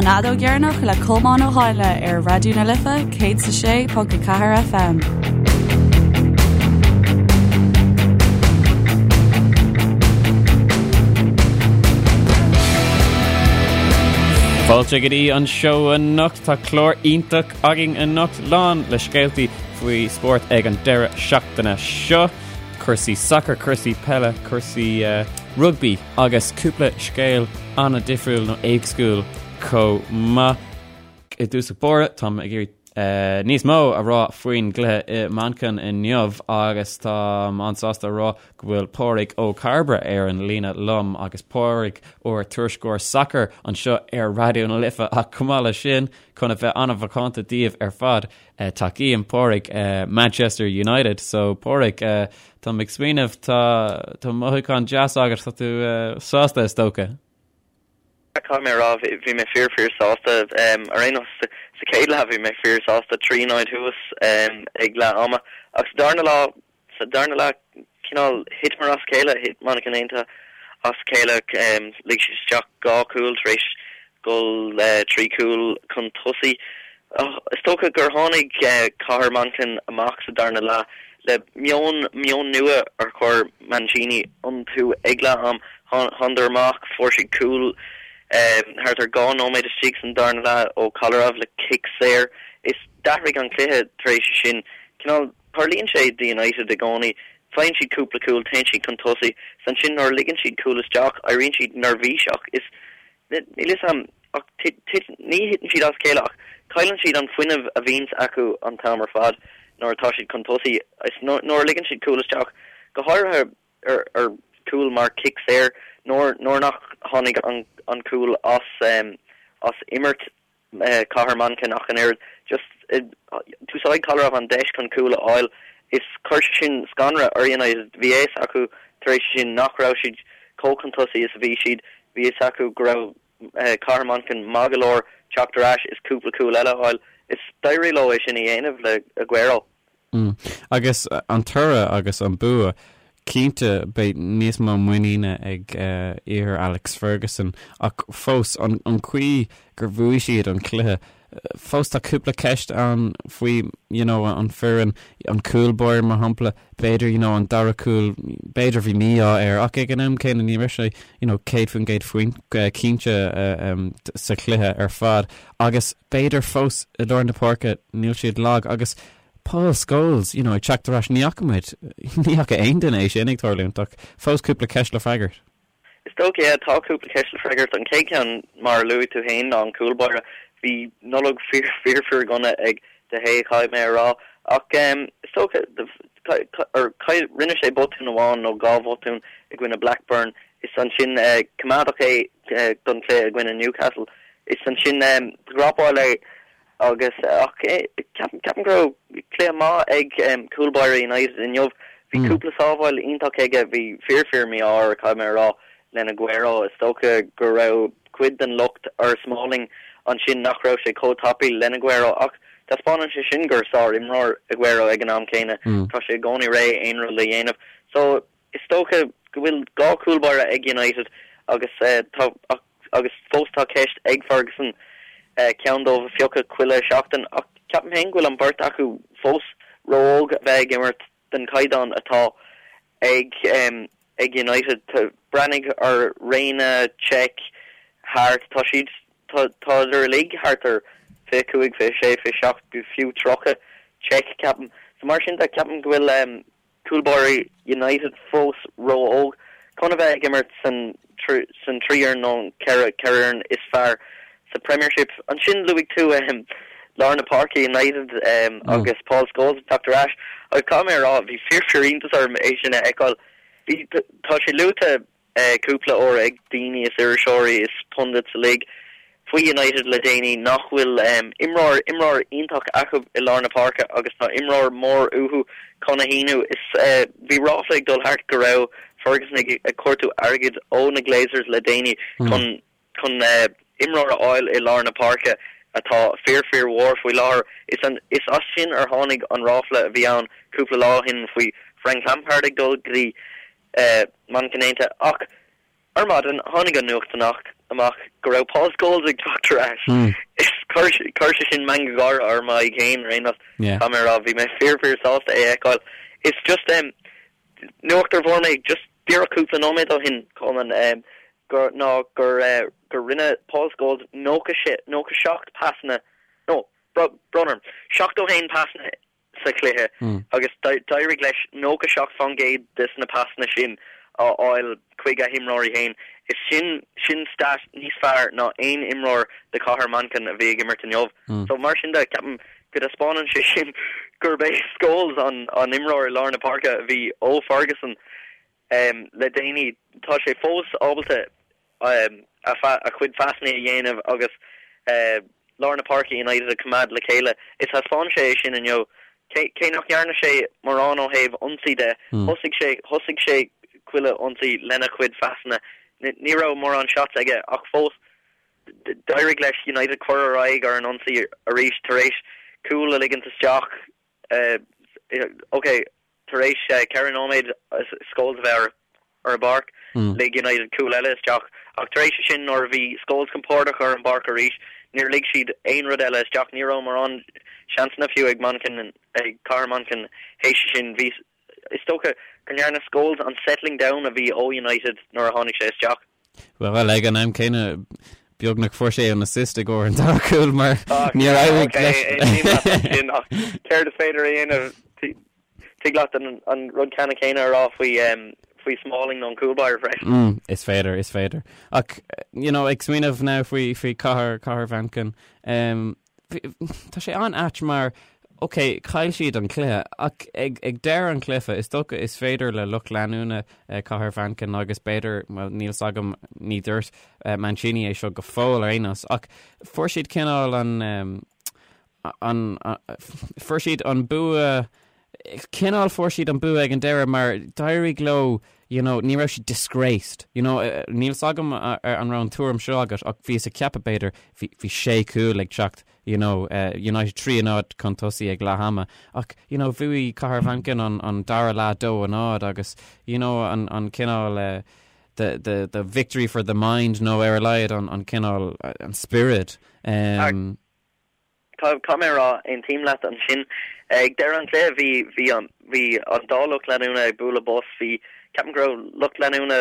An Fheadóg Dheireanach le Colmán Ó Háinle ar Raidió na Life 106.4 FM. Fáilte go dtí an seó anocht. Tá clár iontach againn anocht lán le scéaltaí faoi spórt ag an deireadh seachtaine seo. Cúrsaí sacair, cúrsaí peile, cúrsaí rugbaí agus cúpla scéal an-difriúil nó éagsúil chomh maith. I dtús báire, táim ag iarraidh níos mó a rá faoin gcluiche i Manchain inniu agus táim an-sásta a rá go bhfuil Pádraig Ó Cairbre ar an líne liom agus Pádraig ár tuairisceoir sacair anseo ar Raidió na Life ach chomh maith leis sin, chun a bheith an-mhacánta daoibh ar fad, Tacaím Pádraig Manchester United so Pádraig táim ag smaoineamh tá tá mothúchán deas agat tá tú sásta is dócha. Caithfidh mé a rá bhí mé fíor fíor sásta ar aon nós sa chéad leath bhí mé fíor sásta 3-0 thuas ag leath ama ach sa darna lá Sa darna leath, cineál thiteamar as a chéile, thit Manchain Aontaithe as a chéile, lig siad isteach 2 chúl tar éis dhul 3 chúl chun tosaigh. Is dócha gur tháinig Cathair Manchain amach sa darna leath le meon, meon nua ar chuir Mancini iontu ag leath am. Thánadar amach, fuair siad cúl thart ar 2 nóiméad istigh san darna leath ó Kolarov le cic saor. Is d'athraigh an cluiche tar éis sin. Cineál. Tarlaíonn sé do United i gcónaí, faigheann siad cúpla cúl, téann siad chun tosaigh, is ansin nuair a ligeann siad cúl isteach, éiríonn siad neirbhíseach. Is, níl fhios a'm, ach tit, ní thiteann siad as a chéile ach cailleann siad an fuinneamh a bhíonns acu an t-am ar fad nuair atá siad chun tosaigh. Is nuair a ligeann siad cúl isteach, go háirithe ar ar chúl mar cic saor, nuair nuair nach tháinig an an cúl as as imirt, Cathair Manchain ach an oiread. Just d'úsáid Kolarov an deis chun cúl a fháil is chuir sé sin scanradh ar United. Bhí a fhios acu tar éis sin nach raibh siad chomh chun tosaigh is a bhí siad. Bhí a fhios acu go raibh Cathair Manchain maith go leor teacht ar ais is cúpla cúl eile a fháil. Is d'éirigh leo é sin a dhéanamh le Aguero. Agus an toradh agus an bua, cinnte beidh níos mó muiníne ag fir Alex Ferguson ach fós, an chaoi gur bhuaigh siad an cluiche, fós tá cúpla ceist ann faoi you know an foireann, an cúl báire mar shampla, b'fhéidir you know an dara cúl, b'fhéidir bhí mí-ádh air ach ag an am céanna ní raibh sé you know 100% faoin cinnte sa chluiche ar fad agus b'fhéidir fós i lár na páirce níl siad lag agus Paul Scholes, you know, ag teacht ar ais, ní fhaca muid, ní fhaca aon duine é sin ag tarlúint ach fós cúpla ceist le freagairt. Is dócha, yeah, tá cúpla ceist le freagairt. An chéad cheann, mar a luaigh tú féin, ná an cúl báire. Bhí Nollaig fíor, fíor, fíor dhona ag De Gea, caithfidh mé a rá. Ach is dócha, rinne sé botún amháin nó dhá bhotún i gcoinne Blackburn is ansin coimeádadh é don chluiche i gcoinne Newcastle. Is ansin dhropáil é agus ach ceapaim go raibh cluiche maith ag cúl báire United inniu. Bhí cúpla sábháil iontach aige, bhí fíor fíor mí-ádh air caithfidh mé a rá len Aguero. Is dócha go raibh cuid den locht ar Smalling ansin nach raibh sé chomh tapaidh len Aguero ach taispeánann sé sin gur sár-imreoir Aguero ag an am céanna. Tá sé i gcónaí réidh aon rud le dhéanamh. So Is dócha go bhfuil 2 chúl báire ag United agus tá agus fós tá ceist ag Ferguson ceann dóibh a phiocadh chuile sheachtain ach ceapaim féin go bhfuil an beirt acu fós ró-óg a bheith ag imirt den chaighdeán atá ag ag United. Breathnaigh ar Reina, Cech, Hart, tá siad tá tádar uilig thart ar 25, 26, 27, fiú 30, Cech ceapaim. So mar sin de ceapaim go bhfuil Cúl báire United fós ró-óg chun a bheith ag imirt san san 3 fhoireann nó an 4 fhoireann is fearr sa Premiership. Ansin luaigh tú lár na páirce United agus Paul Scholes ag teacht ar ais agus caithfidh mé a rá bhí fíor fíor iontas orm é sin a fheiceáil. Bhí tá sé luaite cúpla uair ag daoine is iriseoirí is pundits uilig faoi United le déanaí nach bhfuil imreoir imreoir iontach acu i lár na páirce agus tá imreoir mór uathu chun a shíniú. Is bhí ráfla ag dul thart go raibh Ferguson ag ag cuartú airgid ó na Glazers le déanaí chun chun imreoir a fháil i lár na páirce atá fíor fíor mhór faoi láthair. Is an is as sin ar tháinig an ráfla a bhí ann cúpla lá ó shin faoi Frank Lampard ag dul go dtí Manchain Aontaithe. Ach ar maidin, tháinig an nuacht amach. amach go raibh Paul Scholes ag teacht ar ais. Is chuir sé sin meangadh gáire ar m'aghaidh féin ar aon nós. Caithfidh mé a rá, bhí mé fíor fíor sásta é a fheiceáil. Is just nuacht a fuair mé just díreach cúpla nóiméad ó shin, Colman, gur ná gur gur rinne Paul Scholes 96 97 pasanna, nó brón orm, 71 pasanna sa chluiche agus d'éirigh leis 97% des na pasanna sin a fháil chuig a himreoirí féin. Is sin sin stat níos fearr ná aon imreoir de Chathair Manchain a bhí ag imirt inniu. So mar sin de, ceapaim go dtaispeánann sé sin gurb é Scholes an an imreoir i lár na páirce a bhí ó Ferguson le déanaí. Tá sé fós ábalta a chuid phasanna a dhéanamh agus lár na páirce United a choimeád le chéile. Is thaispeáin sé é sin inniu. Cé nach ndearna sé mórán ó thaobh ionsaí de, thosaigh sé thosaigh sé chuile ionsaí lena chuid phasanna. Ní raibh mórán shots aige ach fós d'éirigh leis United cur ar aghaidh ar an ionsaí arís tar éis cúl a ligint isteach. Ok, Tar éis 4 nóiméad Scholes a bheith ar an bpáirc, lig United cúl eile isteach ach tar éis sin nuair a bhí Scholes compordach ar an bpáirc arís, níor lig siad aon rud eile isteach. Ní raibh mórán seansanna fiú ag Manchain, ag Cathair Manchain théis sin. Bhí, is dócha go ndearna Scholes an settling down a bhí ó United nuair a tháinig sé isteach. Bhuel, ag an am céanna, beagnach fuair sé an assist i gcomhair an dara cúl mar níor éirigh leis. Sin ach céard is féidir a dhéanamh? Tig leat an rud ceannann céanna a rá faoi faoi Smalling nó an cúl báire freisin. Is féidir, is féidir. Ach, you know, ag smaoineamh now faoi faoi cathair, cathair Mhanchain, Tá sé an-ait mar, ok, chaill siad an cluiche, ach ag deireadh an chluiche, is dócha is féidir le lucht leanúna Cathair Mhanchain agus b'fhéidir, bhuel, níl 's agam, ní dúirt Mancini é seo go fóill ar aon nós, ach fuair siad cineál an, an, fuair siad an bua, cineál fuair siad an bua ag an deireadh mar d'éirigh leo you know ní raibh siad disgraced you know níl 's agam an raibh an tuairim seo agat ach bhíos ag ceapadh b'fhéidir bhí bhí sé cúl ag teacht you know United 3 a 0 chun tosaigh ag leath ama ach you know bhuaigh Cathair Mhanchain an an dara leath 2 a 0 agus you know an an cineál the the the victory for the mind nó ar a laghad an an cineál an spiorad um, Caithfidh mé a rá, aontaím leat ansin. Ag deireadh an chluiche bhí bhí an bhí an dá lucht leanúna ag bualadh bos. Bhí, ceapaim go raibh lucht leanúna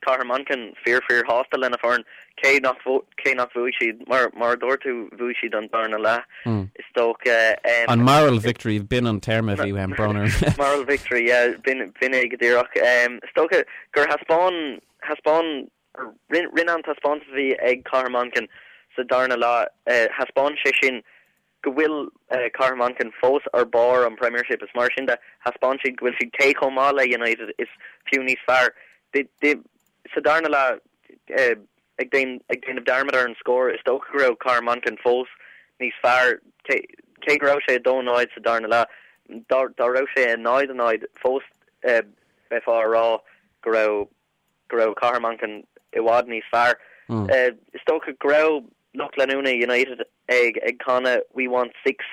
Chathair Manchain fíor fíor shásta lena foireann cé nach cé nach bhuaigh siad. Mar mar a dúirt tú bhuaigh siad an darna leath is dócha. An moral victory, b'in an téarma a bhí uaim, brón orm. Moral victory, yeah, b'in b'in é go díreach. Is dócha gur thaispeáin thaispeáin Rinne an taispeántas a bhí ag Cathair Manchain sa darna leath, thaispeáin sé sin go bhfuil Cathair Manchain fós ar barr an Premiership. Is mar sin de, thaispeáin siad go bhfuil siad cé chomh maith le United is fiú níos fearr. Sa darna leath, ag déanamh dearmad ar an scór, is dócha go raibh Cathair Manchain fós níos fearr. Cé go raibh sé 2-0 sa darna leath, dá raibh sé 0-0 fós bheifeá a rá go raibh go raibh Cathair Manchain i bhfad níos fearr. Is dócha go raibh lucht leanúna United ag ag canadh 'We want six'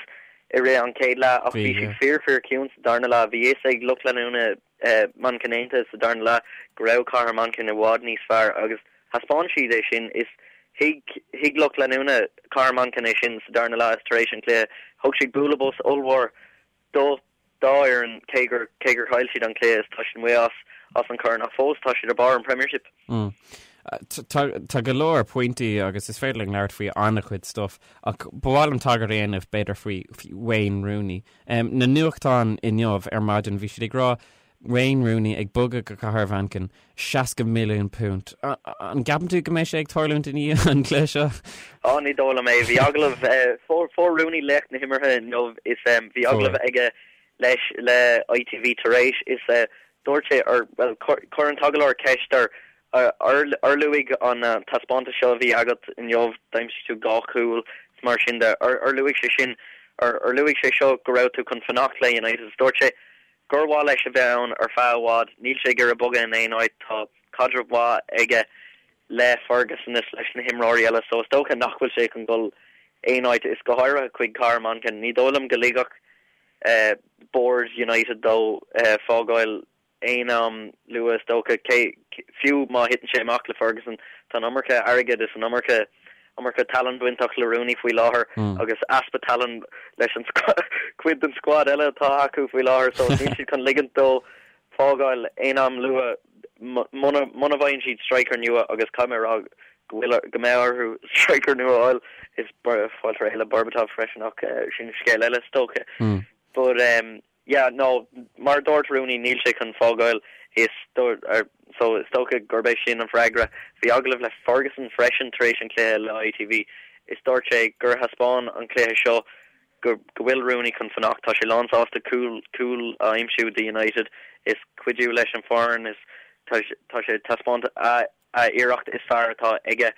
i rith an chéad leath ach bhí siad fíor fíor ciúin sa darna leath. Bhí fhios ag lucht leanúna Manceinianta sa darna leath go raibh Cathair Manchain i bhfad níos fearr agus thaispeáin siad é sin. Is thuig thuig lucht leanúna Cathair Manchain é sin sa darna leath is tar éis an chluiche thug siad bualadh bos ollmhór do dá fhoireann, cé gur cé gur chaill siad an cluiche is tá siad amuigh as as an chorn ach fós tá siad ar barr an Premiership. Tá tá go leor pointí agus is féidir linn labhairt faoi an-chuid stuff ach ba mhaith liom tagairt a dhéanamh b'fhéidir faoi Wayne Rooney. Na nuachtáin inniu ar maidin bhí siad ag rá Wayne Rooney ag bogadh go Cathair Mhanchain, £60 milliún. An gceapann tú go mbeidh sé ag tarlúint i ndiaidh an chluiche seo? Á, ní dóigh liom é. Bhí agallamh, fuair Rooney laoch na himeartha inniu is bhí agallamh aige leis le ITV tar éis is dúirt sé, or bhuel, chuir an t-agallóir ceist air, ar luaigh an taispeántas seo a bhí agat inniu, d'aimsigh tú 2 chúl is mar sin de, ar luaigh sé sin, ar luaigh sé seo go raibh tú chun fanacht le United? Is dúirt sé, gur mhaith leis a bheith ann ar feadh i bhfad. Níl sé ag iarraidh bogadh in aon áit. Tá caidreamh mhaith aige le Ferguson is leis na himreoirí eile so is dócha nach bhfuil sé chun dul aon áit, is go háirithe chuig Cathair Manchain. Ní dóigh liom go ligfeadh Bord United dó fágáil aon am luath is dócha. Cé, fiú má thiteann sé amach le Ferguson. Tá an iomarca airgid is an iomarca iomarca tallann bainteach le Rooney faoi láthair agus easpa tallann leis an cuid den squad eile atá acu faoi láthair so níl siad chun ligint dó fágáil aon am luath muna muna bhfaigheann siad striker nua agus caithfidh mé a rá go bhfuil go mbeidh orthu striker nua a fháil is fáilte réidh le Berbatov freisin ach sin scéal eile is dócha. But um, Yeah, no, mar a dúirt Rooney, níl sé chun fágáil is so is dócha gurb é sin an freagra. Bhí agallamh le Ferguson freisin tar éis an chluiche le ITV is dúirt sé gur thaispeáin an cluiche seo go go bhfuil Rooney chun fanacht. Tá sé lánsásta cúl cúl a aimsiú do United is cuidiú leis an foireann is tá tá sé taispeáint a a iarracht is fearr atá aige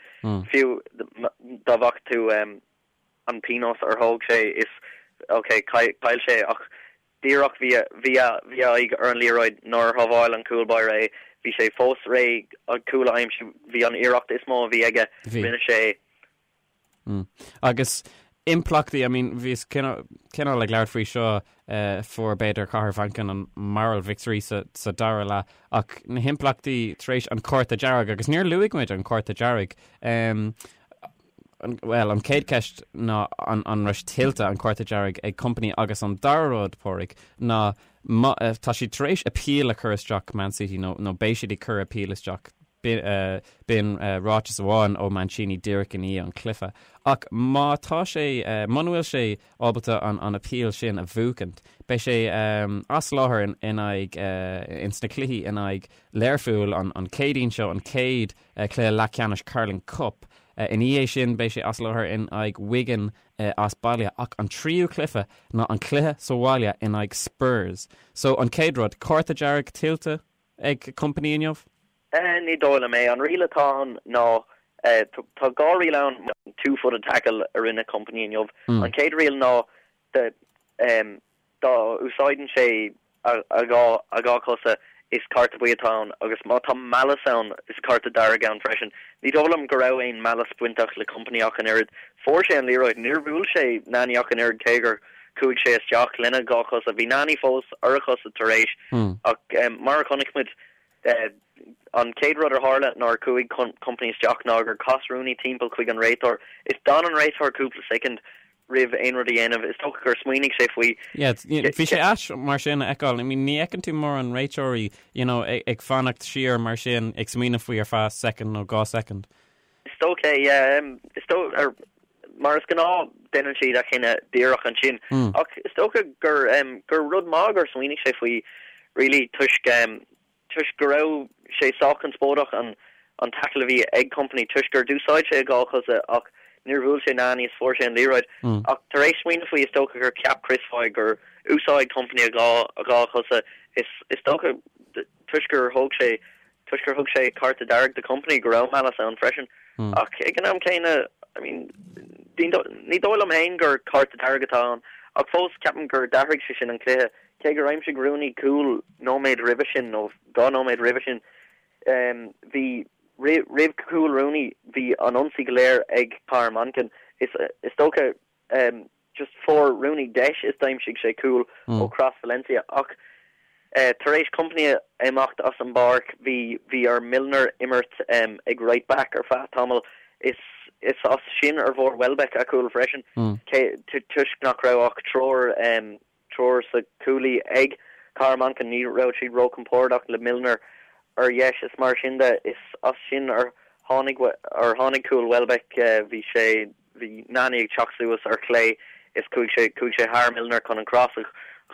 fiú dá bhfaca tú an pionós ar thóg sé is ok chaill sé ach díreach bhí a bhí a bhí a aghaidh ar an liathróid nuair a shábháil an cúl báire é bhí sé fós réidh an cúl a aimsiú bhí an iarracht is mó a bhí aige rinne sé é. Mm. Agus impleachtaí I mean bhíos cineál cineál ag labhairt faoi seo eh, fuair b'fhéidir Cathair Mhanchain an moral victory sa, sa dara leath ach na himpleachtaí tar éis an cárta dearg agus níor luaigh muid an cárta dearg um, Bhuel, an chéad cheist ná an an raibh sé tuillte an cárta dearg ag Kompany agus an dara rud, Pádraig, ná má tá siad tar éis appeal a chur isteach Man City nó nó beidh siad ag cur appeal isteach b'in ráiteas amháin ó Mancini díreach i ndiaidh an chluiche. Ach má tá sé muna bhfuil sé ábalta an an appeal sin a bhuachaint, beidh sé as láthair in in aghaidh ins na cluichí in aghaidh Learpholl an an Chéadaoin seo, an chéad cluiche leathcheannais Carling Cup. Ina dhiaidh sin beidh sé as láthair in aghaidh Wigan as baile ach an tríú cluiche ná an cluiche sa bhaile in aghaidh Spurs. So an chéad rud, cárta dearg tuillte ag Kompany inniu? Ní dóigh liom é. An riail atá ann ná, tá dhá riail ann, two-footed tackle a rinne Kompany inniu. An chéad riail ná Dá úsáideann sé a dhá chosa, is cárta buí atá ann, agus má tá malice ann, is cárta dearg ann freisin. Ní dóigh liom go raibh aon malice bainteach le Kompany ach an oiread. Fuair sé an liathróid, níor bhuail sé Nani ach an oiread cé gur chuaigh sé isteach lena dhá chosa. Bhí Nani fós ar a chosa tar éis, ach mar a chonaic muid, an chéad rud a tharla nuair a chuaigh Kompany isteach ná gur chas Rooney timpeall chuig an réiteoir is d'fhan an réiteoir cúpla soicind roimh aon rud a dhéanamh. Is dócha gur smaoinigh sé faoi. Yeah, bhí sé ait mar sin a fheiceáil. I mean, ní fheiceann tú mórán réiteoirí, you know, ag fanacht siar mar sin, ag smaoineamh faoi ar feadh soicind nó dhá soicind. Is dócha, yeah. Is dócha, mar is gnáth, déanann siad a chinneadh díreach ansin. Ach is dócha gur, gur rud maith gur smaoinigh sé faoi, really, toisc, toisc go raibh sé sách conspóideach an an tackle a bhí ag Kompany toisc gur d'úsáid sé a dhá chosa ach níor bhuail sé Nani is fuair sé an liathróid. Ach tar éis smaoineamh faoi is dócha gur cheap Chris Foy gur úsáid Kompany a dhá a dhá chosa is is dócha toisc gur thóg sé toisc gur thug sé cárta dearg do Kompany go raibh malice ann freisin. Ach ag an am céanna I mean ní dóigh liom féin gur cárta dearg atá ann ach fós ceapaim gur d'athraigh sé sin an cluiche. Cé gur aimsigh Rooney cúl nóiméad roimhe sin, nó dhá nóiméad roimhe sin, bhí, roimh chúl Rooney, bhí an ionsaí go léir ag Cathair Manchain. Is is dócha, just fuair Rooney deis is d'aimsigh sé cúl ó chros Valencia. Ach tar éis Kompany imeacht as an bpáirc, bhí bhí ar Milner imirt ag right back ar feadh tamaill. Is is as sin ar bhfuair Welbeck a chúl freisin, cé toisc nach raibh ach triúr triúr sa chúlaí ag Cathair Manchain. Ní raibh siad róchompordach le Milner ar dheis is mar sin de. Is as sin ar tháinig ar tháinig cúl Welbeck. Bhí sé bhí Nani ag teacht suas ar chlé is chuaigh sé chuaigh sé thar Milner chun an cros a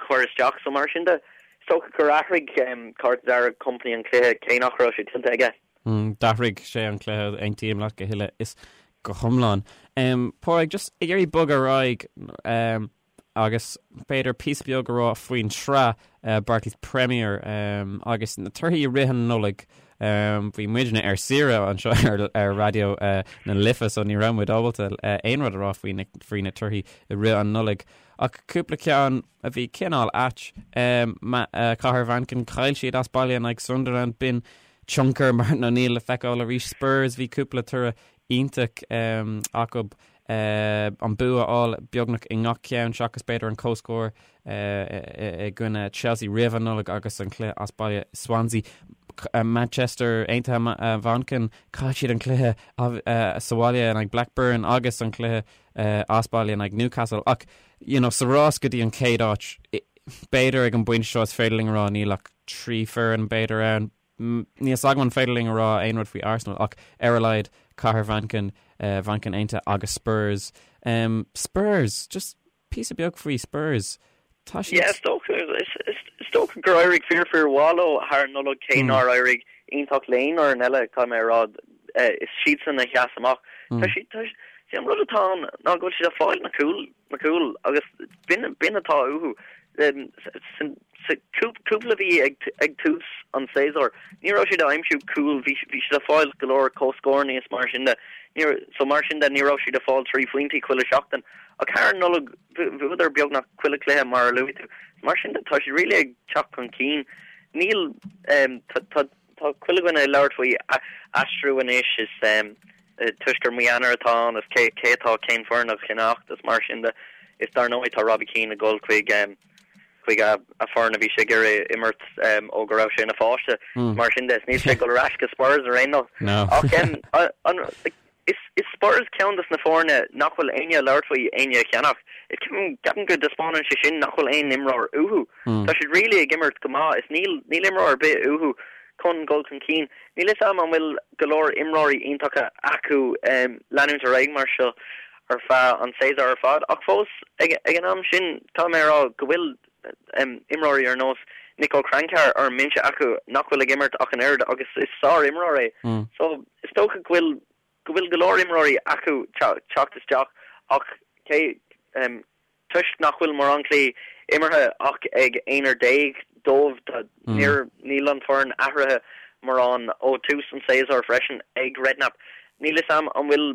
chur isteach. So mar sin de, is dócha gur athraigh cárta dearg Kompany an cluiche cé nach raibh sé tuillte aige. D'athraigh sé an cluiche, aontaím leat go huile is go hiomlán. Pádraig, just ag iarraidh bogadh ar aghaidh, agus b'fhéidir píosa beag a rá faoin tsraith Barclays Premier agus na torthaí i rith an Nollaig. Bhí muidne ar saoire anseo ar Raidió na Life so ní raibh muid ábalta aon rud a rá faoi faoi na torthaí i rith an Nollaig. Ach cúpla ceann a bhí cineál ait, Cathair Mhanchain, chaill siad as baile in aghaidh Sunderland, b'in tionchar Martin O'Neill le feiceáil arís. Spurs, bhí cúpla toradh iontach acu. an bua a fháil beagnach i ngach ceann seachas b'fhéidir an comhscór i gcoinne Chelsea roimh an Nollaig agus an cluiche as baile Swansea. Manchester Aontaithe Mhanchain, chaill siad an cluiche sa bhaile in aghaidh Blackburn agus an cluiche as baile in aghaidh Newcastle ach you know, sa rás go dtí an chéad áit, b'fhéidir ag an bpointe seo is féidir linn a rá níl ach 3 foireann b'fhéidir ann. Níl fhios agam an féidir linn a rá aon rud faoi Arsenal ach ar a laghad Cathair Mhanchain, Manchain Aontaithe agus Spurs. Spurs! Just píosa beag faoi Spurs. Tá siad. Yeah, is dócha, is dócha gur éirigh fíor fíor mhaith leo thar an Nollaig cé nár éirigh iontach le aon fhoireann eile, caithfidh mé a rá. Is siadsan a sheas amach. Tá siad, tá, see an rud atá ann ná go bhfuil siad ag fáil na cúil, na cúil agus b'in, b'in atá uathu. Sa cúpla mhí ag tús an tséasúir, ní raibh siad ag aimsiú cúil, bhí siad ag fáil go leor comhscóranna is mar sin de. So mar sin de, ní raibh siad ag fáil 3 phointí chuile seachtain. Ach thar an Nollaig, bhuadar beagnach chuile chluiche mar a luaigh tú. Mar sin de, tá siad really ag teacht chun cinn. Níl, tá chuile dhuine ag labhairt faoi aistriú anois is toisc gur mí Eanáir atá ann is cé atá cén foireann a cheannacht is mar sin de. Is dar ndóigh tá Robbie Keane ag dul chuig chuig a foireann a bhí sé ag iarraidh imirt ó go raibh sé ina pháiste. Mar sin de, níl sé ag dul ar ais go Spurs ar aon nós. Ach is Spurs ceann des na foirne nach bhfuil éinne ag labhairt faoi éinne a cheannach. Ceapaim go dtaispeánann sé sin nach bhfuil aon imreoir uathu. Tá siad really ag imirt go maith is níl níl imreoir ar bith uathu chun dul chun cinn. Níl fhios a'm an bhfuil go leor imreoirí iontacha acu leanúint ar aghaidh mar seo ar feadh an tséasúir ar fad ach fós ag an am sin tá mé ag rá go bhfuil imreoirí ar nós Niko Kranjčar ar an mbinse acu nach bhfuil ag imirt ach an oiread agus is sár-imreoir é. So is dócha go bhfuil go bhfuil go leor imreoirí acu teacht isteach ach cé Toisc nach bhfuil mórán cluichí imeartha ach ag aonar déag dóibh, níl an foireann athraithe mórán ó tús an tséasúir freisin ag Redknapp. Níl fhios a'm an bhfuil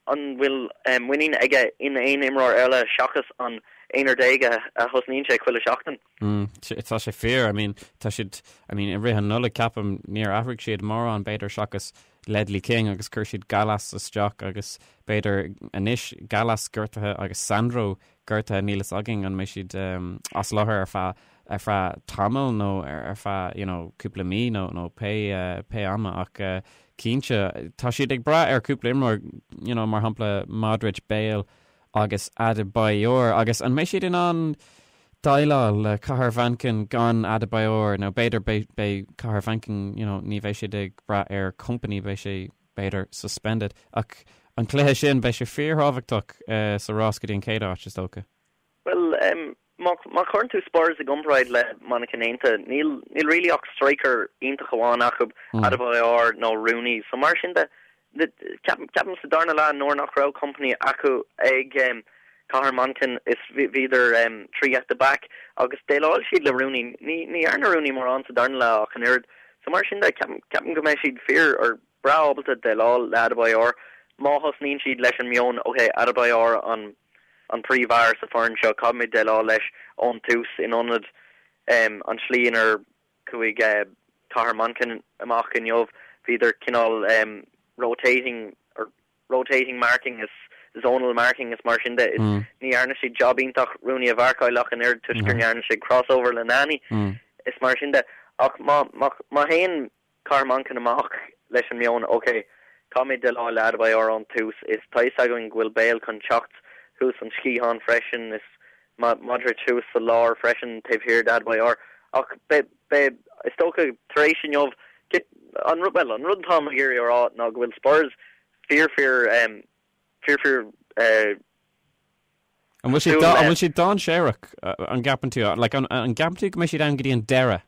an bhfuil muinín aige in aon imreoir eile seachas an aonar déag a thosnaíonn sé chuile sheachtain. Tá sé fíor, I mean, tá siad, I mean, i rith an Nollaig ceapaim níor athraigh siad mórán b'fhéidir seachas Ledley King agus chuir siad Gallas isteach agus b'fhéidir anois Gallas gortaithe agus Sandro gortaithe níl fhios againn an mbeidh siad as láthair ar feadh ar feadh tamaill nó ar feadh you know cúpla mí nó nó pé pé ama ach cinnte tá siad ag brath ar cúpla imreoir you know mar shampla Modric, Bale agus Adebayor agus an mbeidh siad in ann déileáil le Cathair Mhanchain gan Adebayor nó b'fhéidir beidh beidh Cathair Mhanchain you know ní bheidh siad ag brath ar Kompany beidh sé b'fhéidir suspended ach an cluiche sin beidh sé fíorthábhachtach sa rás go dtí an chéad áit is dócha. Bhuel má má chuireann tú Spurs i gcomparáid le Manchain Aontaithe níl níl really ach striker iontach amháin acu Adebayor nó Rooney so mar sin de Ceapaim sa darna leath nuair nach raibh Kompany acu ag Cathair Manchain is bhíodar 3 at the back agus dhéileáil siad le Rooney. Ní dhearna Rooney mórán sa darna leath ach an oiread. So mar sin de, ceapaim go mbeidh siad fíor or breá ábalta déileáil le Adebayor má thosnaíonn siad leis an meon ok Adebayor an an príomhfhear sa foireann seo, caithfimid déileáil leis ón tús in ionad an tslí inar Chuaigh Cathair Manchain amach inniu, bhíodar cineál rotating or rotating marking is zonal marking is mar sin de. Is ní dhearna siad job iontach Rooney a mharcáil ach an oiread toisc gur ndearna sé crossover le Nani is mar sin de. Ach má má théann Cathair Manchain amach leis an meon ok, caithfimid déileáil le Adebayor ón tús is tá fhios againn go bhfuil Bale chun teacht thuas an sciathán freisin is Modric thuas sa lár freisin taobh thiar d'Adebayor ach beidh, beidh, is dócha tar éis inniu, an rud, bhuel, an rud atáim ag iarraidh a rá ná go bhfuil Spurs fíor fíor, fíor fíor eh, An bhfuil siad, an bhfuil siad dainséarach, an gceapann tú? Like, an, an gceapann tú go mbeidh siad ann go dtí an deireadh?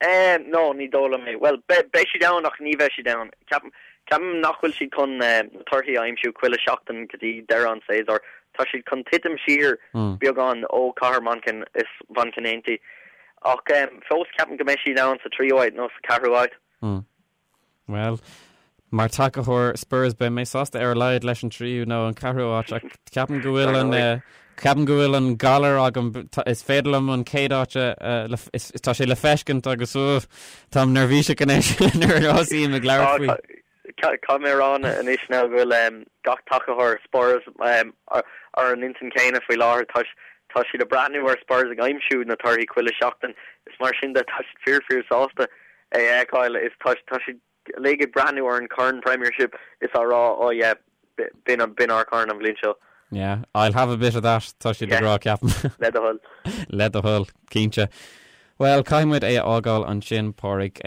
Eh, no, ní dóigh liom é. Bhuel, beidh, beidh siad ann ach ní bheidh siad ann. Ceapaim, ceapaim nach bhfuil siad chun na torthaí a aimsiú chuile sheachtain go dtí deireadh an tséasúir. Tá siad chun titim siar beagán ó Cathair Manchain is Manchain Aontaithe. Ach fós ceapaim go mbeidh siad ann sa tríú háit nó sa ceathrú háit. Bhuel, mar tacaitheoir Spurs beidh mé sásta ar a laghad leis an tríú nó an ceathrú áit ach ceapaim go bhfuil an ceapaim go bhfuil an galar agam is féidir liom an chéad áit a tá sé le feiscint agus táim neirbhíseach anois nuair a thosaím ag labhairt faoi. Caithfidh mé a rá anois now go bhfuil gach tacaitheoir Spurs ar an intinn céanna faoi láthair. Tá tá siad ag breathnú ar Spurs ag aimsiú na torthaí chuile seachtain is mar sin de tá siad fíor fíor sásta. é a fheiceáil is tá tá siad uilig ag breathnú ar an chorn Premiership is á rá oh yeah b'in b'in ár corn an bhliain seo. Yeah, I'll have a bit of that, tá siad ag rá ceapaim. Le do thoil. Le do thoil, cinnte. Bhuel, caithfidh muid é a fhágáil ansin, Pádraig.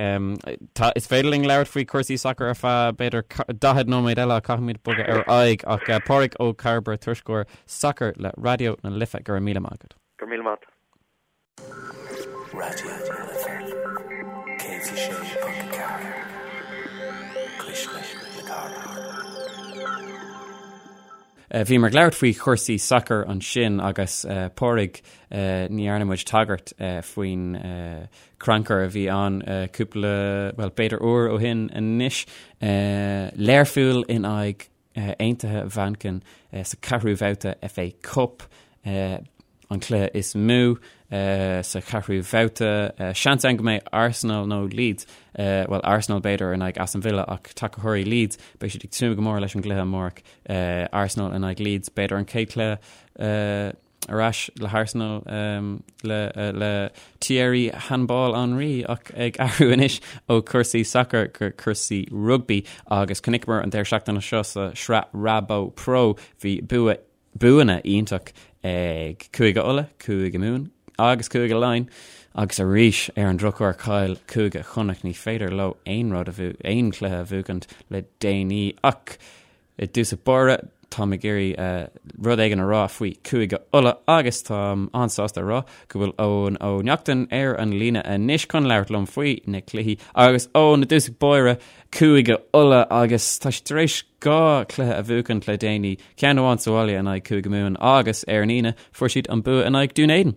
Tá, is féidir linn labhairt faoi chúrsaí sacair ar feadh, b'fhéidir, 40 nóiméad eile ach caithfidh muid bogadh ar aghaidh. Ach Pádraig Ó Cairbre, tuairisceoir sacair le Raidió na Life, go raibh míle maith agat. Go raibh míle maith. Raidió na Life 106.4, Cuisle na Cathrach. Bhíomar ag labhairt faoi chúrsaí sacair ansin agus Pádraig, ní dhearna muid tagairt faoin crannchur a bhí ann cúpla, bhuel, b'fhéidir uair ó shin anois. Learpholl in aghaidh Aontaithe Mhanchain sa cheathrú bhabhta FA Cup. an cluiche is mó sa cheathrú bhabhta. Seans ann go mbeidh Arsenal nó Leeds, bhuel Arsenal b'fhéidir in aghaidh Aston Villa ach tacaitheoirí Leeds, beidh siad ag tnúth go mór leis an gcluiche amárach. Arsenal in aghaidh Leeds, b'fhéidir an chéad chluiche ar ais le hArsenal le le Thierry Handball Henry ach ag athrú anois ó chúrsaí sacair go cúrsaí rugbaí agus chonaiceamar an deireadh seachtaine seo sa sraith Rabo Pro bhí bua buanna iontach ag Cúige Uladh, Cúige Mumhan agus Cúige Laighean agus arís ar an drochuair chaill Cúige Chonnacht. Ní féidir leo aon rud a bhu, aon chluiche a bhuachaint le déanaí ach i dtús báire táim ag iarraidh rud éigin a rá faoi Cúige Uladh agus táim an-sásta a rá go bhfuil Eoin Ó Neachtain ar an líne anois chun labhairt liom faoi na cluichí agus Eoin i dtús báire Cúige Uladh agus tá siad tar éis 2 chluiche a bhuachaint le déanaí, ceann amháin sa bhaile in aghaidh Cúige Mumhan agus ar an Aoine fuair siad an bua in aghaidh Dún Éideann.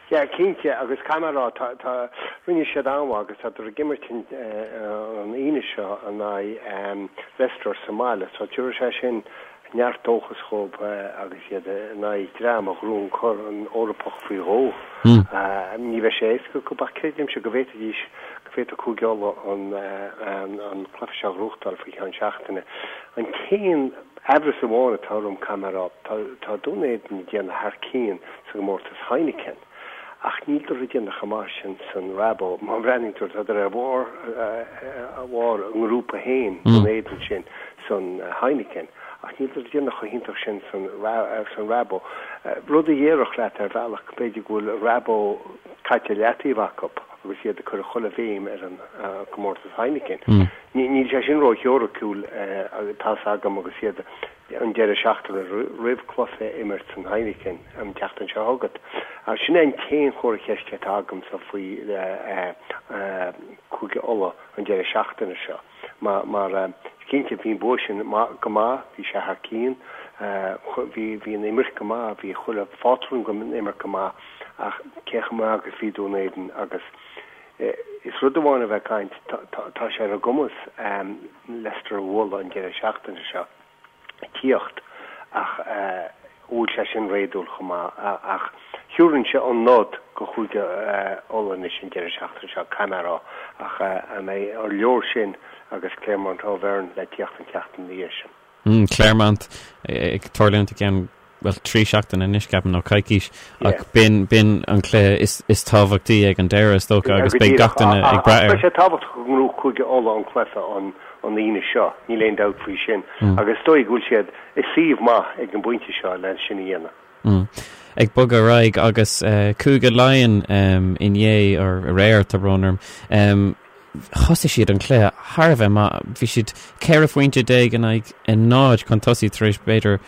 Yeah, cinnte, agus caithfidh mé a rá, tá, tá, rinne siad an-mhaith agus tádar ag imirt an Aoine seo in aghaidh Leicester sa mbaile, so tabharfaidh sé sin neart dóchas dhóibh agus iad in aghaidh dream a ghnóthaigh an Corn Eorpach faoi dhó. Ní bheidh sé éasca acu ach creidimse go bhféadfaidís, go bhféadfadh Cúige Uladh an cluiche seo a ghnóthachtáil faoi cheann seachtaine. An t-aon aimhreas amháin atá orm, caithfidh mé a rá, tá Dún Éideann ag déanamh thar cionn sa gcomórtas Heineken. Ach níldar ag déanamh chomh maith sin san Rabo. Má bhreathnaíonn tú, tádar ar bharr a bharr a ngrúpa féin, Dún Éideann sin, san Heineken. Ach níldar ag déanamh chomh hiontach sin san san Rabo. Rud a dhéarfadh leat ar bhealach, b'fhéidir go bhfuil Rabo caite i leataobh acu agus iad ag cur chuile bhéim ar an gcomórtas Heineken. Níl sé sin ró-theoiriciúil, tá's agam, agus iad an deireadh seachtaine roimh cluiche a imirt san Heineken an tseachtain seo chugat. Sin é an t-aon chomhartha ceiste atá agamsa faoi Cúige Uladh an deireadh seachtaine seo. Mar cinnte bhí an bua sin go maith, bhí sé thar cionn, bhí an imirt go maith, bhí chuile phátrún den imirt go maith ach cé chomh maith agus bhí Dún Éideann agus is rud amháin a bheith ag caint, tá sé ar a gcumas Leicester a bhualadh an deireadh seachtaine seo. tíocht ach bhfuil sé sin réadúil chomh maith. Ach thiúrfainnse an nod go Chúige Uladh anois an deireadh seachtaine seo, caithfidh mé a rá. Ach an mbeidh ar leor sin agus Clermont Auvergne le tíocht an tseachtain ina dhiaidh sin? Clermont ag tarlúint i gceann, bhuel, 3 seachtaine anois, ceapaim, nó coicís, ach b'in, b'in an cluiche is, is tábhachtaí ag an deireadh, is dócha, agus beidh gach duine ag brath air. Beidh sé tábhachtach go ngnóthódh Cúige Uladh an cluiche an, an Aoine seo, níl aon dabht faoi sin, agus is dóigh go bhfuil siad i suíomh maith ag an bpointe seo le sin a dhéanamh. Ag bogadh ar aghaidh agus Cúige Laighean inné, or aréir, tá brón orm, thosaigh siad an cluiche thar a bheith maith. Bhí siad 14 phointe in aghaidh a 0 chun tosaigh tar éis b'fhéidir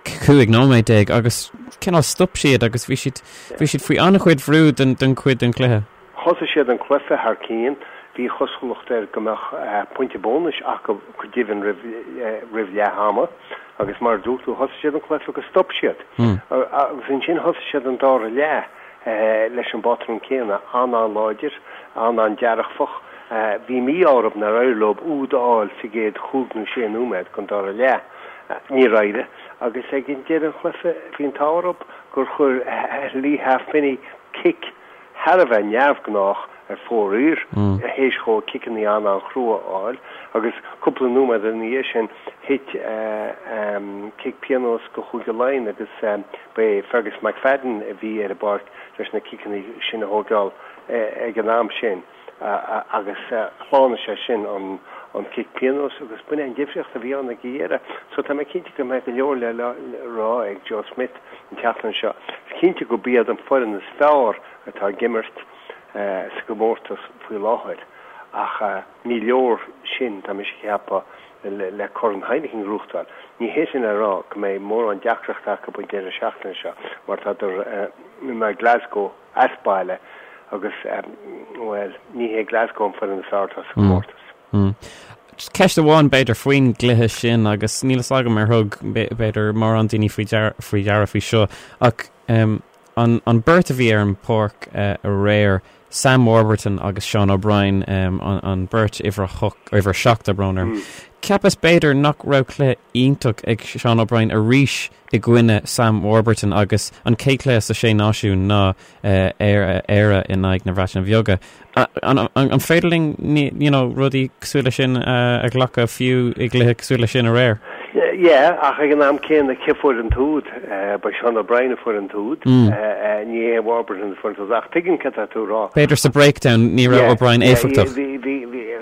15 nóiméad agus cineál stop siad agus bhí siad bhí siad faoi an-chuid bhrú den den chuid den chluiche. Thosaigh siad an cluiche thar cionn, bhí cosúlacht air go mbeadh pointe bónais acu go deimhin roimh roimh leath ama agus mar a dúirt tú thosaigh siad an cluiche agus stop siad. Agus ansin thosaigh siad an dara leath leis an bpátrún céanna, an-an-láidir, an-an-dearfach. Bhí mí-ádh orthu nár éirigh leo úd a fháil sa gcéad chúig nó sé nóiméad den dara leath. Níor éirigh agus ag deireadh an chluiche bhí an t-ádh orthu gur chuir Leigh Halfpenny cic thar a bheith neamhghnách ar fóraoil théis dhó ciceanna an-an-chrua a fháil agus cúpla nóiméad ina dhiaidh sin thit cic pionóis go Chúige Laighean agus ba é Fergus McFadden a bhí ar an bpáirc leis na ciceanna sin a thógáil ag an am sin. Agus shlánaigh sé sin an cic pionóis agus b'in é an difríocht a bhí ann ag an dheireadh. So tá mé cinnte go mbeidh go leor le rá ag Joe Schmidt an tseachtain seo. Is cinnte gurb iad an foireann is fearr atá ag imirt sa gcomórtas faoi láthair ach ní leor sin, tá mise ag ceapadh, le Corn Heineken a ghnóthachtáil. Ní hé sin le rá go mbeidh mórán deacrachta acu an deireadh seachtaine seo mar tádar in aghaidh Glasgow as baile agus, bhuel, ní hé Glasgow an foireann is fearr atá sa chomórtas. Ceist amháin, b'fhéidir, faoin gcluiche sin agus níl fhios agam ar thug, b'fhéidir, mórán daoine faoi deara faoi seo ach an beirt a bhí ar an bpáirc aréir, Sam Warburton agus Sean O'Brien, an beirt uimhir a uimhir 7, tá brón orm. Cheapas b'fhéidir nach raibh cluiche iontach ag Sean O'Brien arís i gcoinne Sam Warburton agus an chéad chluiche sa Sé Náisiún ná Éire in aghaidh na Breataine Bheaga. An féidir linn you know rudaí cosúil leis sin a ghlacadh fiú i gcluiche cosúil leis sin aréir? Yeah, ach ag an am céanna cé fuair an t-úd? Ba Sean O'Brien a fuair an t-úd, ní hé Warburton a fuair an t-úd. Ach tuigim cad tá tú a rá. B'fhéidir sa breakdown ní raibh O'Brien éifeachtach. Bhí, bhí, bhí,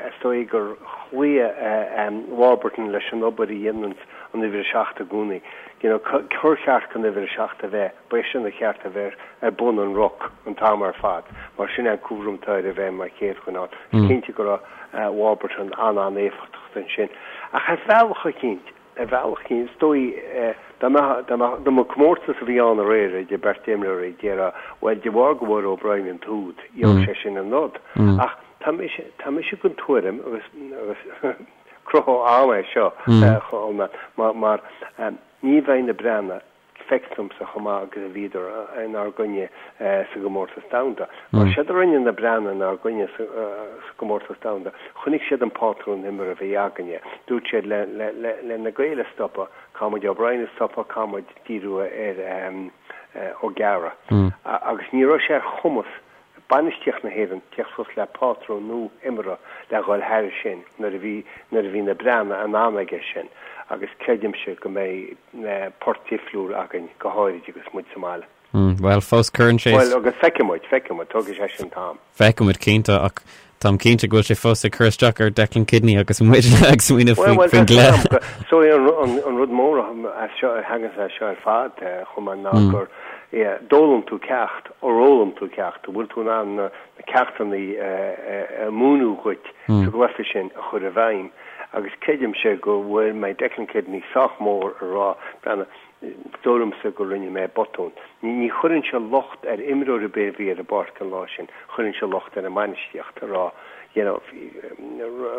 is dóigh gur chloígh Warburton leis an obair a dhéanann an uimhir 7 i gcónaí. You know, cár cheart don uimhir 7 a bheith, ba é sin a cheart a bheith ar bun an ruc an t-am ar fad, mar sin é an cúram atá air a bheith mar chéad dhuine ann. Is cinnte go raibh Warburton an-an-éifeachtach ansin. Ach ar bhealach eicínt, ar bhealach eicínt, is dóigh, dá mbeadh, dá mbeadh, dá mba comórtas a bhí ann aréir idir beirt imreoirí, déarfá, bhuel, de bharr go bhfuair O'Brien an t-úd, gheobhaidh sé sin an nod. Ach tá mise, tá mise den tuairim, agus, agus, Cruthú ama é seo, mar mar ní bheidh na Breatnaigh, feictear domsa, chomh maith agus a bhíodar inár gcoinne sa gcomórtas domhanda. Mar séard a rinne na Breatnaigh inár gcoinne sa gcomórtas domhanda, chonaic siad an pátrún imeartha a bhí againne. Dúirt siad le le na Gaeil a stopadh, caithfidh muid O'Brien a stopadh, caithfidh muid díriú ar O'Gara. Agus ní raibh sé ar chumas bainistíocht na hÉireann teacht suas le pátrún nua imeartha le dhul thairis sin nuair a bhí nuair a bhí na Breathnaigh in ann aige sin agus creidimse go mbeidh port difriúil againn go háirid agus muid sa mbaile. Bhuel, fós cuireann sé. Bhuel, agus feicfidh muid, feicfidh muid, tógfaidh sé sin t-am. Feicfidh muid cinnte ach táim cinnte go bhfuil sé fós ag cur isteach ar Declan Kidney agus muid ag smaoineamh faoin gcluiche. So an rud mór as seo a thagann as seo ar fad chomh maith ná gur d'fhoghlaim tú ceacht Ar fhoghlaim tú ceacht? An bhfuil tú in ann na ceachtanna a múineadh dhuit sa gcluiche sin a chur i bhfeidhm? Agus creidimse go bhfuil mbeidh Declan Kidney sách mór a rá, breathnaigh, is dóigh liomsa go rinne mé botún. Ní chuirfinnse locht ar imreoir ar bith a bhí ar an bpáirc an lá sin, chuirfinnse locht ar an mbainistíocht a rá, you know,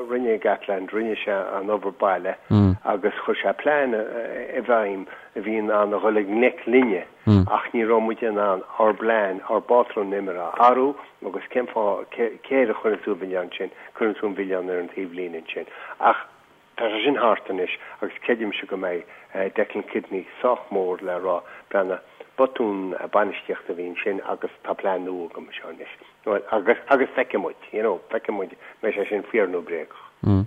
rinne Gatland, rinne sé an obair baile agus chuir sé plean i bhfeidhm a bhí in ann a dhul i ngleic linne. Ach ní raibh muid in ann ár bplean, ár bpátrún imeartha a athrú agus cén fáth, cé air a chuireann tú an milleán sin? Cuireann tú an milleán ar an taobhlíne ansin. Ach tá sé sin thart anois agus creidimse go mbeidh Declan Kidney sách mór le rá, breathnaigh, botún bainistíochta a bhí ansin agus tá plean nua agam anseo anois. Bhuel, agus, agus feicfidh muid, you know, feicfidh muid, mbeidh sé sin fíor nó bréagach.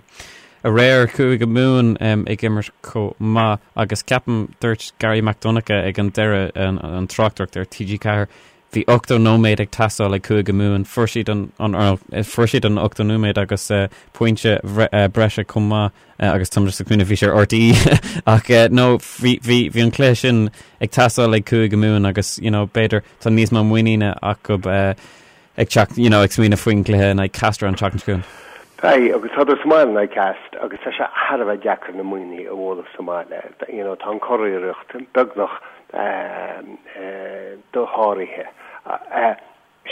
Aréir, Cúige Mumhan ag imirt chomh maith agus ceapaim, dúirt Garry Mac Donncha ag an deireadh, an tráchtaireacht ar TG4, bhí 80 nóiméad ag teastáil ag Cúige Mumhan, fuair siad an, an, fuair siad an 80 nóiméad agus pointe breise chomh maith agus táim just ag smaoineamh bhí sé ar RTÉ ach no, bhí, bhí, bhí an cluiche sin ag teastáil ag Cúige Mumhan agus, you know, b'fhéidir tá níos mó muiníne acu ag teacht, you know, ag smaoineamh faoin gcluiche in aghaidh Castres an tseachtain seo chugainn. Beidh, agus tádar sa mbaile in aghaidh Castres agus tá sé thar a bheith deacair na Muimhnigh a bhualadh sa mbaile. You know, tá an curiarracht beagnach dosháraithe.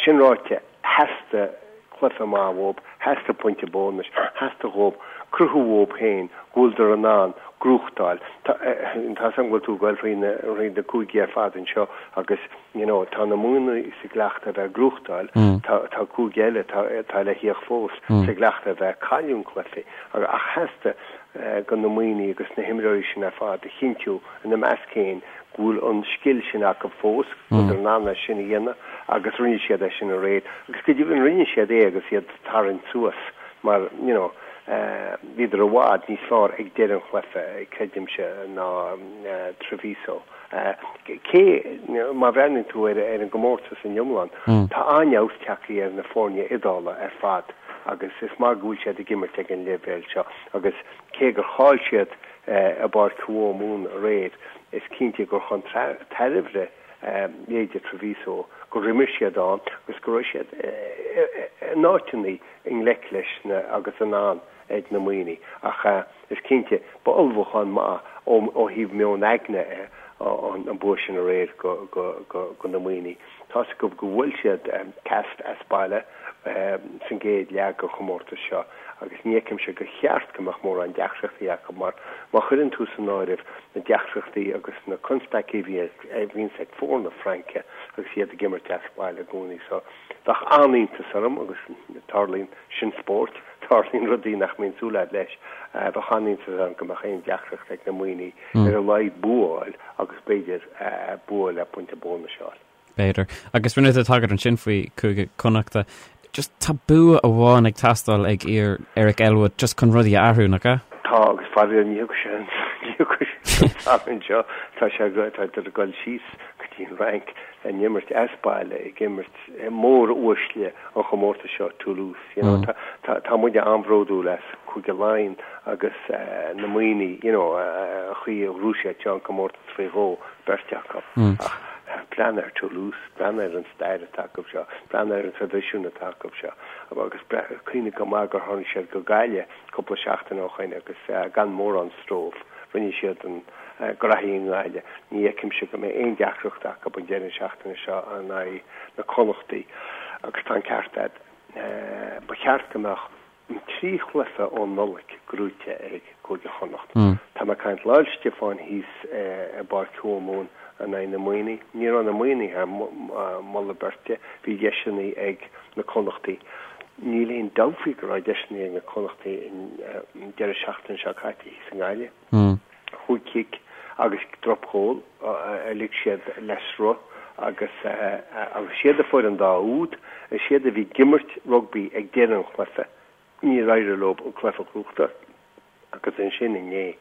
Sin ráite, theastaigh cluiche maith uathu, theastaigh pointe bónais, theastaigh dhóibh cruthú dhóibh féin go bhfuileadar in ann gnóthachtáil. Tá 'fhios a'm go bhfuil tú ag goil thríd na cúigí ar fad anseo agus you know tá na Muimhnigh sa gcleachtadh a bheith ag gnóthachtáil, tá tá cúige eile atá atá le theacht fós sa gcleachtadh a bheith ag cailliúint cluichí. Ach theastaigh go na Muimhnigh agus na himreoirí sin ar fad a chinntiú ina measc féin go bhfuil an scil sin acu fós, go bhfuileadar in ann é sin a dhéanamh agus rinne siad é sin aréir. Agus go deimhin rinne siad é agus iad ag tarraingt suas mar, you know, bhíodar i bhfad níos fearr ag deireadh an chluiche, creidimse, ná Treviso. Cé, má bhreathnaíonn tú ar an gcomórtas in iomlán, tá an-fheabhas tagtha ar na foirne Iodála ar fad agus is maith go bhfuil siad ag imirt ag an leibhéal seo agus cé gur chaill siad i bPáirc Thuamhumhan aréir, is cinnte gur chun tairbhe leithéide Treviso gur imir siad ann agus go raibh siad in áiteanna i ngleic leis na agus in ann ag na Muimhnigh. Ach is cinnte, ba ullmhúchán maith ó thaobh meon aigne an bua sin aréir go na Muimhnigh. Tá's acu go bhfuil siad cast as baile san gcéad leath den chomórtas seo agus ní fheicimse gur cheart go mbeadh mórán deacrachtaí acu mar má chuireann tú san áireamh na deacrachtaí agus na constaicí a bhíonns ag foirne Fraince agus iad ag imirt as baile i gcónaí so bheadh an-iontas orm agus tarlaíonn sin spórt, tarlaíonn rudaí nach mbíonn súil agat leis, bheadh an-iontas orm go mbeadh aon deacracht ag na Muimhnigh ar a laghad bua a fháil agus b'fhéidir bua le pointe bónais a fháil. B'fhéidir. Agus rinne tú tagairt ansin faoi Chúige Connachta. Just tá bua amháin ag teastáil ag fir Eric Elwood just chun rudaí a athrú, nach ea? Tá, agus faraor ní thiocfaidh sé an ní thiocfaidh sé an Satharn seo. Tá sé tá ag dul síos go dtí an Fhrainc ag imirt as baile ag imirt mór-uaisle an chomórtais seo, Toulouse. You know, tá, tá, tá muide an-bhródúil as Cúige Laighean agus na Muimhnigh, you know, an chaoi a ghnóthaigh siad seo an comórtas faoi dhó, beirt acu. Ach breathnaigh ar Toulouse, breathnaigh ar an stair atá acu seo, breathnaigh ar an traidisiún atá acu seo. Agus cuimhnigh go maith gur tháinig siad go Gaillimh cúpla seachtain ó shoin agus gan mórán stró, rinne siad an graithí i nGaillimh. Ní fheicimse go mbeidh aon deacracht acu an deireadh seachtaine seo in aghaidh na Connachtaí agus tá an ceart agat, ba cheart go mbeadh an 3 chluiche ón Nollaig gnóite ag Cúige Chonnacht. Tá mé ag caint lá Fhéile Stiofáin thíos i bPáirc Thuamhumhan in aghaidh na Muimhnigh. Ní raibh na Muimhnigh thar moladh beirte, bhí deiseanna ag na Connachtaí. Níl aon dabht faoi go raibh deiseanna ag na Connachtaí an deireadh seachtaine seo caite thíos i nGaillimh. Chúig chic agus dropghól a lig siad le sruth agus agus is iad a fuair an dá úd, is iad a bhí ag imirt rugbaí ag deireadh an chluiche. Níor éirigh leo an cluiche a ghnóthachtáil agus ansin inné,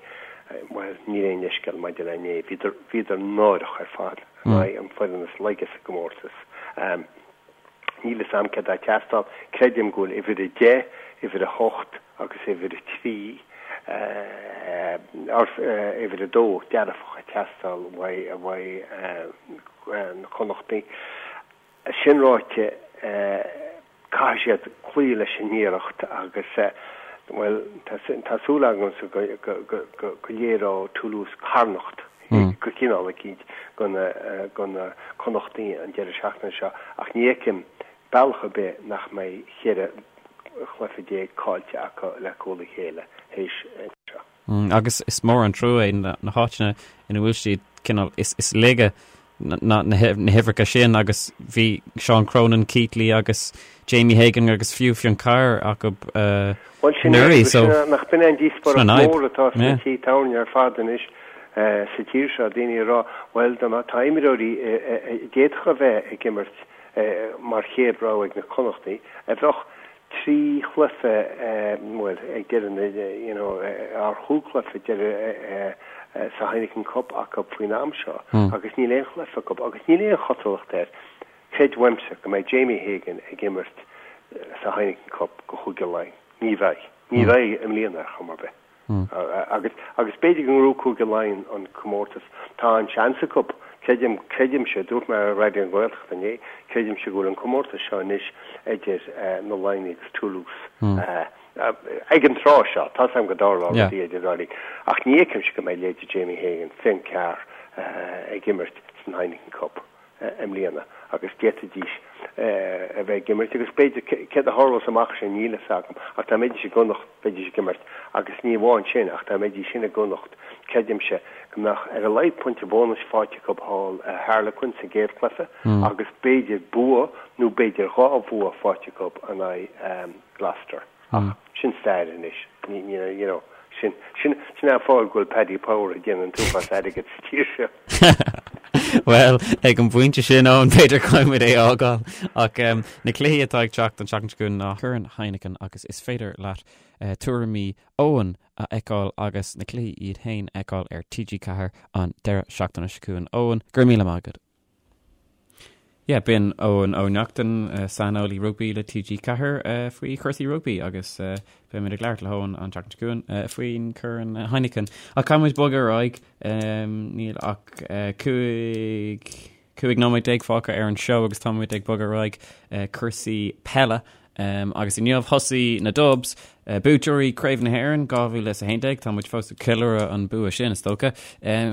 bhuel, níl aon leithscéal maidir le inné, bhíodar, bhíodar náireach ar fad in aghaidh an foireann is laige sa gcomórtas. Níl fhios a'm céard atá ag teastáil, creidim go bhfuil uimhir 10, uimhir 8 agus uimhir 3, or uimhir 2 dearfach ag teastáil uaidh, uaidh na Connachtaigh. Sin ráite, caithfidh siad cloí leis an iarracht agus, bhuel, tá súil agamsa go léireoidh Toulouse carnacht de chineál eicínt do na Connachtaigh an deireadh seachtaine seo ach ní fheicim bealach ar bith nach mbeidh 14 chluiche caillte acu le cúl a chéile théis seo. Agus is mór an trua é na háiteanna ina bhfuil siad cineál is laige na huimhreacha sin agus bhí Seán Cronin, Keatley agus Jamie Hagan agus fiú Fionn Carr acu anuraidh. So nach b'in an díospóireacht mór atá sna tithe tábhairne ar fad anois sa tír seo, daoine ag rá bhuel tá imreoirí a d'fhéadfadh a bheith ag imirt mar chéad rogha ag na Connachtaigh a bheadh 3 chluiche, bhuel, ag deireadh na, you know, ar chúig chluiche deireadh sa Heineken Cup acu faoin am seo agus níl aon chluiche acu agus níl aon chosúlacht air, creid uaimse, go mbeidh Jamie Hagan ag imirt sa Heineken Cup go Chúige Laighean. Ní bheidh. Ní bheidh i mbliana ar chuma ar bith. Agus, agus b'fhéidir go ngnóthóidh Cúige Laighean an comórtas. Tá an seans acu. Creidim, creidimse, dúirt mé ar Raidió na Gaeltachta inné, creidimse go bhfuil an comórtas seo anois idir na Laighnigh agus Toulouse. Ag an tráth seo, tá's agam go dtarlóidh rudaí idir an dá linn. Ach ní fheicimse go mbeidh leithéidí Jamie Hagan, Fionn Carr ag imirt san Heineken Cup. i mbliana agus d'fhéadfaidís a bheith ag imirt agus b'fhéidir céard a tharlós amach sin níl fhios agam ach dá mbeidís i gConnacht bheidís ag imirt agus ní amháin sin ach dá mbeidís sin i gConnacht creidimse go mbeadh ar a laghad pointe bónais faighte acu thall i Harlequin sa gcéad chluiche agus b'fhéidir bua nó b'fhéidir dhá bhua faighte acu in aghaidh Gloucester. Ach sin stair anois. Ní, ní, you know, sin, sin, sin an fáth go bhfuil Paddy Power ag déanamh an t-uafás airgid sa tír seo. Bhuel, ag an bpointe sin, Eoin, b'fhéidir caithfidh muid é a fhágáil. Ach na cluichí atá ag teacht an tseachtain seo chugainn ná Corn Heineken agus is féidir leat tuairimí Eoin a fheiceáil agus na cluichí iad féin a fheiceáil ar TG4 an deireadh seachtaine seo chugainn. Eoin, go raibh míle maith agat. Yeah, b'in Eoin Ó Neachtain, saineolaí rugbaí le TG4 faoi chúrsaí rugbaí agus beimid ag labhairt le hEoin an tseachtain seo chugainn faoin Corn Heineken. Ach caithfidh muid bogadh ar aghaidh, níl ach 15 nóiméad fágtha ar an seó agus táimid ag bogadh ar aghaidh cúrsaí peile Agus inniu thosaigh na Dubs, buaiteoirí Craobh na hÉireann 2011, tá muid fós ag ceiliúradh an bua sin, is dócha.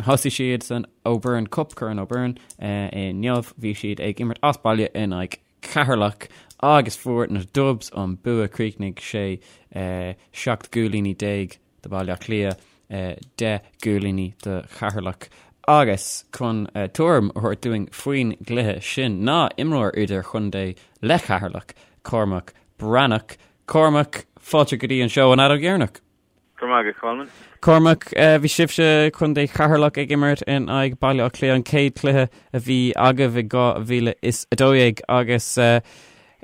Thosaigh siad san O'Byrne Cup, Corn O'Byrne, inniu. Bhí siad ag imirt as baile in aghaidh Ceatharlach agus fuair na Dubs an bua. Chríochnaigh sé 17 gcúilíní do Bhaile Átha Cliath, 10 gcúilíní do Cheatharlach. Agus chun tuairim a thabhairt dúinn faoin gcluiche sin ná imreoir idirchontae le Ceatharlach, Cormac Breathnach. Cormac, fáilte go dtí an seó an Fheadóg Dheireanach. Go raibh maith agat, Colman. Cormac, bhí sibhse, Contae Cheatharlach, ag imirt in aghaidh Baile Átha Cliath, an chéad chluiche a bhí agaibh i 2012 agus ar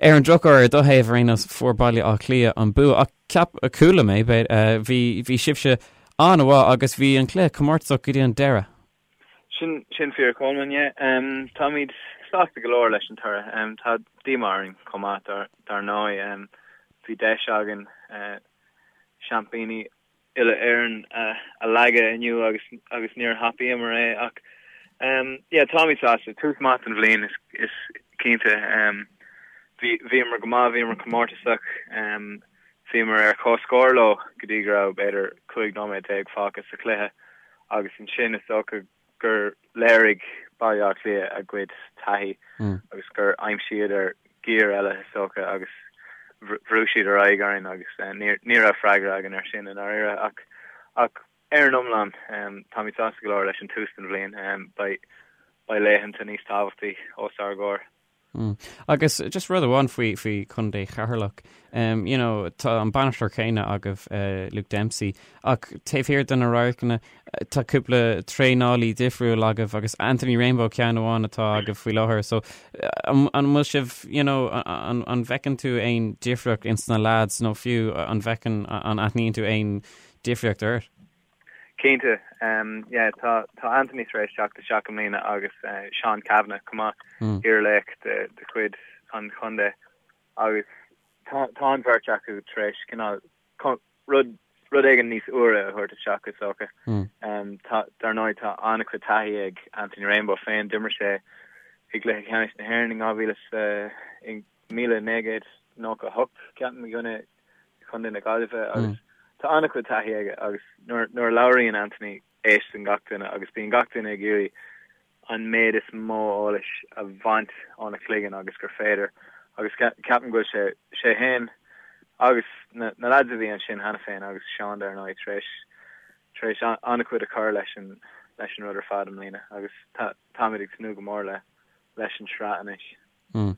an drochuair, ar do thaobh ar aon nós, fuair Baile Átha Cliath an bua. Ach Ceap, chuala mé, bhí, bhí sibhse an-mhaith agus bhí an cluiche comórtasach go dtí an deireadh. Sin, sin fíor Colman, yeah. Táimid sásta go leor leis an toradh. Tá díomá orainn chomh maith dar, dar ndóigh. Bhí deis againn seaimpíní uile-Éireann a leagadh inniu agus, agus níor thapaíomar é ach yeah, táimid sásta. Tús maith don bhliain is, is cinnte. Bhí, bhíomar go maith, bhíomar comórtasach. Bhíomar ar comhscór leo go dtí go raibh b'fhéidir 15 nóiméad fágtha sa chluiche agus ansin is dócha gur léirigh Baile Átha Cliath a gcuid taithí agus gur aimsíodar giar eile is dócha agus bhrú siad ar aghaidh orainn agus ní raibh freagra againn ar sin i ndáiríre ach ach ar an iomlán táimid sásta go leor leis an tús den bhliain. Beidh beidh laethanta níos tábhachtaí os ár gcomhair. Agus just rud amháin faoi faoi Chontae Cheatharlach, um, you know, tá an bainisteoir céanna agaibh, uh, Luke Dempsey, ach taobh thiar de na radharcanna tá cúpla traenálaí difriúil agaibh agus Anthony Rainbow ceann amháin atá agaibh faoi láthair, so an, an bhfuil sibh, you know, an, an bhfeiceann tú aon difríocht ins na lads nó fiú an bhfeiceann, an aithníonn tú aon difríocht ort? Cinnte, yeah, tá tá Anthony tar éis teacht isteach i mbliana agus Seán Cavanagh chomh maith, iarlaoch de de chuid an chontae agus tá tá an bheirt acu tar éis cineál rud rud éigin níos úire a thabhairt isteach is dócha. Tá dar ndóigh tá an-chuid taithí ag Anthony Rainbow féin, d'imir sé i gcluiche ceannais na hÉireann in 2000 is 1998 ceapaim i gcoinne Chontae na Gaillimhe agus tá an-chuid taithí aige agus nuair nuair a labhraíonn Anthony éisteann gach duine agus bíonn gach duine ag iarraidh an méid is mó eolais a bhaint óna chloigeann agus gur féidir agus ceapaim go bhfuil sé sé féin agus na na lads a bhí ansin cheana féin agus Seán dar ndóigh tar éis tar éis an-chuid a chur leis an leis an rud ar fad i mbliana agus tá táimid ag tnúth go mór le leis an tsraith anois.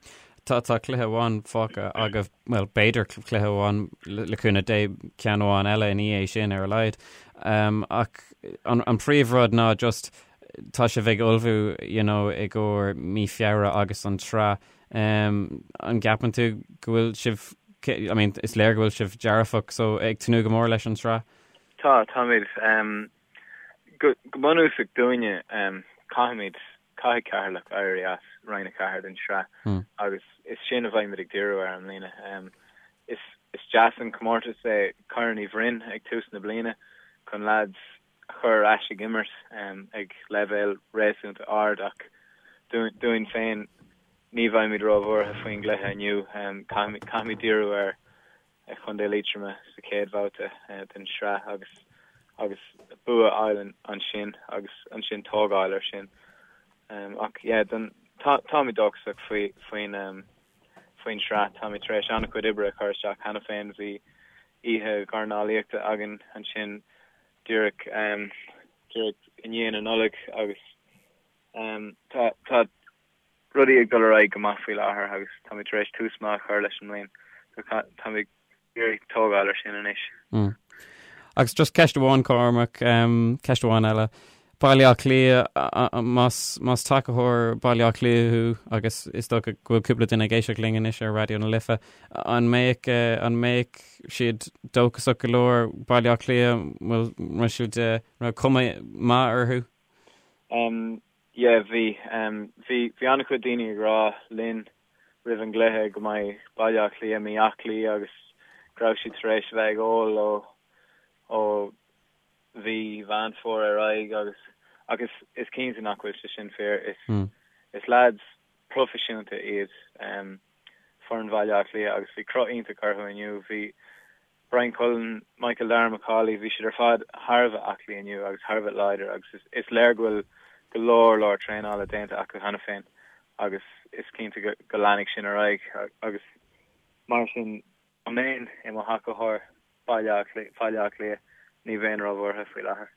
Tá tá cluiche amháin fágtha agaibh, bhuel b'fhéidir cluiche amháin le cúnamh Dé ceann amháin eile ina dhiaidh sin ar a laghad. Ach an an príomhrud ná just tá sibh ag ullmhú you know i gcomhair mí Feabhra agus an tsraith. An gceapann tú go bhfuil sibh I mean is léir go bhfuil sibh dearfach so ag tnúth go mór leis an tsraith? Tá, táimid. Go bunúsach dúinne caithfimid Caithfidh Ceatharlach éirí as Roinn 4 den tsraith agus is sin a bheimid ag díriú air i mbliana. Is deas an comórtas é Corn Uí Bhroin ag tús na bliana chun leaids a chur ar ais ag imirt ag leibhéal réasúnta ard ach dúinn féin ní bheimid róbhuartha faoin gcluiche inniu. Caithfimid díriú ar Chontae Liatroma sa chéad bhabhta den tsraith agus agus bua a fháil ansin agus ansin tógáil ar sin. Ach yeah, don, tá, táimid dóchasach faoi, faoin, faoin tsraith. Táimid tar éis an-chuid oibre a chur isteach cheana féin. Bhí oíche dhornálaíochta againn ansin díreach, díreach i ndiaidh na Nollag agus tá, tá, rudaí ag dul ar aghaidh go maith faoi láthair agus táimid tar éis tús maith a chur leis an mbliain so táimid ag iarraidh tógáil ar sin anois. Agus just ceist amháin, Cormac, ceist amháin eile. Baile Átha Cliath, más, más tacaitheoir Baile Átha Cliath thú, agus is dócha go bhfuil cúpla duine ag éisteacht linn anois ar Raidió na Life, an mbeadh, an mbeadh siad dóchasach go leor Baile Átha Cliath, bhfuil, raibh siad, raibh cuma maith orthu? Um, yeah, bhí. Um, bhí, bhí an-chuid daoine ag rá linn roimh an gcluiche go mbeidh Baile Átha Cliath mí-aclaí agus go raibh siad tar éis a bheith ag ól ó, ó mhí Mheán Fómhair ar aghaidh agus ach is, is cinnte nach bhfuil sé sin fíor. Is, mm. is lads proifisiúnta iad um, foireann Bhaile Átha Cliath agus bhí cruth iontach orthu inniu. Bhí Bryan Cullen, Michael Darragh Macauley, bhí siad ar fad thar a bheith aclaí inniu agus thar a bheith láidir agus is, is léir go bhfuil go leor leor traenála déanta acu cheana féin agus is cinnte go, go leanfaidh sin ar aghaidh agus mar sin dá mbeinn i mo thacaitheoir Baile Átha Cliath, ní bheinn róbhuartha faoi láthair.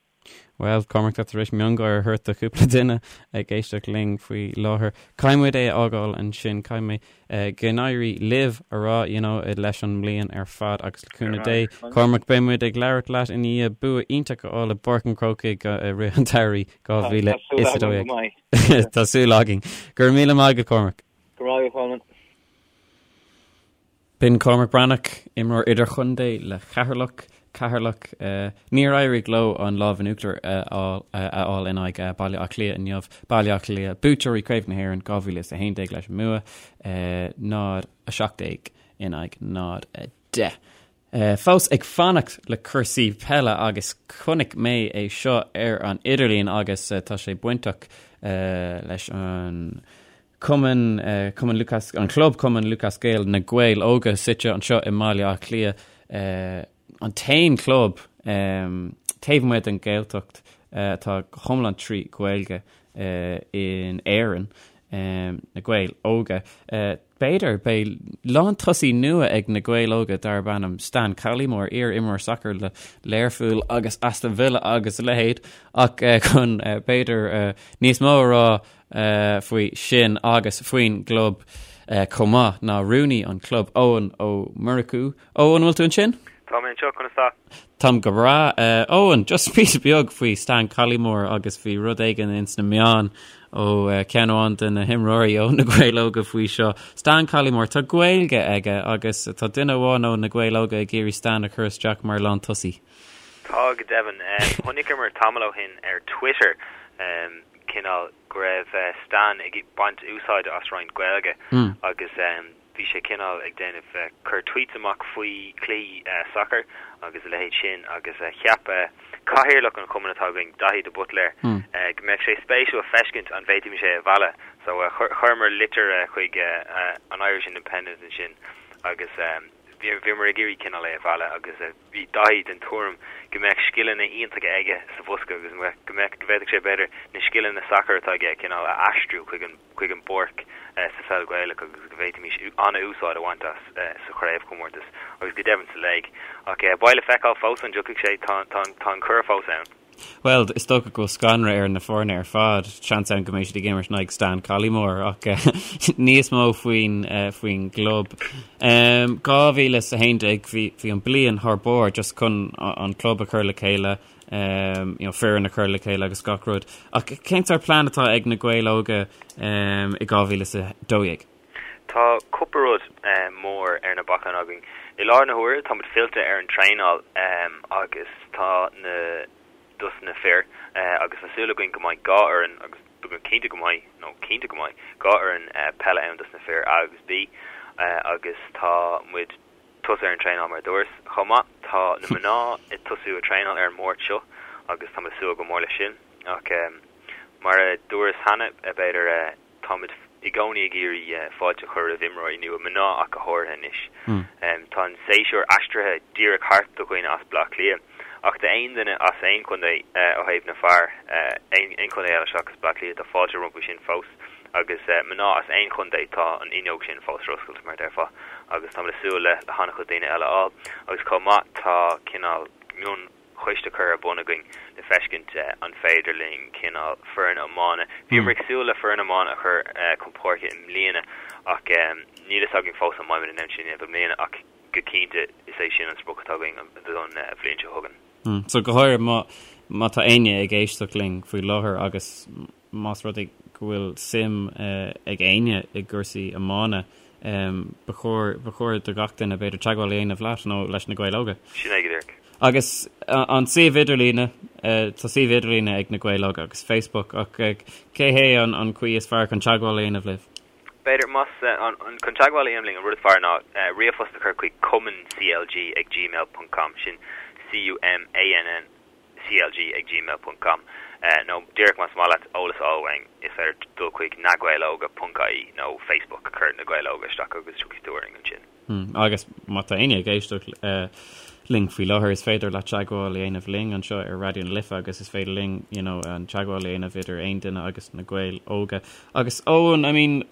Bhuel, Cormac, tá tar éis miongháire a thabhairt do chúpla duine ag éisteacht linn faoi láthair. Caithfidh muid é a fhágáil ansin, caithfidh mé go n-éirí libh a rá, you know, leis an mbliain ar fad agus le cúnamh Dé, Cormac, beidh muid ag labhairt leat i ndiaidh bua iontach a fháil i bPáirc an Chrócaigh i rith an tsamhraidh 2012. Tá súil againn. Go raibh míle maith agat, Cormac. Go raibh maith agat, Colman. B'in Cormac Breathnach, imreoir idirchontae le Ceatharlach. Ceatharlach, níor éirigh leo an lámh in uachtar a fháil in aghaidh Baile Átha Cliath inniu. Baile Átha Cliath, buaiteoirí Craobh na hÉireann 2011 leis an mbua, 0-17 in aghaidh 0-10. Fós ag fanacht le cúrsaí peile agus chonaic mé é seo ar an idirlíon agus tá sé bainteach leis an Cumann, Cumann Lúthchleas, an Club Cumann Lúthchleas Gael, Na Gaeil Óga, suite anseo i mBaile Átha Cliath, an t-aon chlub taobh amuigh den Ghaeltacht atá go hiomlán trí Ghaeilge in Éirinn, Na Gaeil Óga. B'fhéidir, beidh lántosaí nua ag Na Gaeil Óga darb ainm Stan Collymore, iar-imreoir sacair le Learpholl agus Aston Villa agus a leithéid, ach chun b'fhéidir níos mó a rá faoi sin agus faoin gclub chomh maith ná rúnaí an chlub, Eoin Ó Murchú. Eoin, an bhfuil tú ansin? Tá mé anseo, conas tá? Táim go breá. Eoin, just píosa beag faoi Stan Collymore agus bhí rud éigin ins na meáin ó ceann amháin de na himreoirí ó na Gaeil Óga faoi seo. Stan Collymore, tá Gaeilge aige agus tá duine amháin ó na Gaeil Óga ag iarraidh Stan a chur isteach mar lántosaí. Tá, go deimhin. Chonaiceamar tamall ó shin ar Twitter cineál go raibh Stan ag baint úsáide as roinnt Gaeilge agus bhí sé cineál ag déanamh, cur tweets amach faoi chluichí sacair agus a leithéid sin agus cheap cathaoirleach an chumainn atá againn, Daithí de Buitléir, go mbeadh sé spéisiúil feiscint an bhféadfaimis é a mhealladh. So chuireamar litir chuig an Irish Independent ansin agus bhíomar ag iarraidh cineál é a mhealladh agus Bhí Daithí den tuairim go mbeadh scileanna iontacha aige sa bhosca agus go mbeadh, go bhféadfadh sé b'fhéidir na scileanna sacair atá aige cineál a aistriú chuig an, chuig an bpáirc sa pheil Ghaelach agus go bhféadfaimis an-úsáid a bhaint as sa chraobhchomórtas agus go deimhin sa léig. Ach beidh le feiceáil fós an dtiocfaidh sé, tá, tá, tá an cuireadh fós ann. Bhuel, is dócha go bhfuil scanradh ar na foirne ar fad, seans ann go mbeidh siad ag imirt in aghaidh Stan Collymore, ach níos mó faoin faoin gclub. 2011, bhí bhí an bliain thar barr just chun an club a chur le chéile, you know, foireann a chur le chéile agus gach rud. Ach cén sórt plean atá ag na Gaeil Óga i 2012? Tá cúpla rud mór ar na bacáin againn. I láthair na huaire tá muid fillte ar an traenáil agus tá na dos na fir agus tá súil againn go mbeidh 2 fhoireann agus cinnte go mbeidh nó cinnte go mbeidh 2 fhoireann peile ann dos na fir A agus B agus tá muid tosú ar an traenáil mar a dúras. Chomh maith tá na mná ag tosú ag traenáil ar an Máirt seo agus tá muid ag súil go mór leis sin ach mar a dúras cheana b'fhéidir Táimid i gcónaí ag iarraidh fáilte a chur roimh imreoirí nua, mná ach go háirithe anois. Tá an séasúr aistrithe díreach thart do dhaoine as Baile Átha Cliath, ach d'aon duine as aon chontae ó thaobh na fear, aon chontae eile seachas Baile Átha Cliath, tá fáilte rompu sin fós. Agus mná as aon chontae, tá an fhuinneog sin fós ar oscailt, mar a déarfá, agus táimid ag súil le han-chuid daoine eile a fháil. Agus chomh maith, tá cineál mion. choiste curtha ar bun againn le feiscint an féidir linn cineál foireann iomána. Bhíomar ag súil le foireann iomána a chur chun páirce i mbliana ach níl fhios againn fós an mbeimid in ann sin a dhéanamh i mbliana ach go cinnte is é sin an sprioc atá againn don bhliain seo chugainn. So go háirithe má. má tá éinne ag éisteacht linn faoi láthair agus más rud é go bhfuil suim ag éinne i gcúrsaí iomána, ba chóir, ba chóir do gach duine b'fhéidir teagmháil a dhéanamh leat nó leis na Gaeil Óga. Sin é go díreach. Agus an suíomh idirlíne, tá suíomh idirlíne ag na Gaeil Óga agus Facebook ach cé hé an chaoi is fearr chun teagmháil a dhéanamh libh? B'fhéidir, más chun teagmháil a dhéanamh linn, an rud is fearr ná ríomhphost a chur chuig cumannclg ag gmail ponc com, sin C-U-M-A-N-N C-L-G ag gmail ponc com, nó díreach más maith leat eolas a fháil uainn, is féidir dul chuig nagaeloga ponc ie nó Facebook, cuir Na Gaeil Óga isteach agus tiocfaidh tú orainn ansin. Agus má tá éinne ag éisteacht linn faoi láthair, is féidir leat teagmháil a dhéanamh linn anseo ar Raidió na Life agus is féidir linn you know, an teagmháil a dhéanamh idir aon duine agus na Gaeil Óga. Agus Eoin, I mean,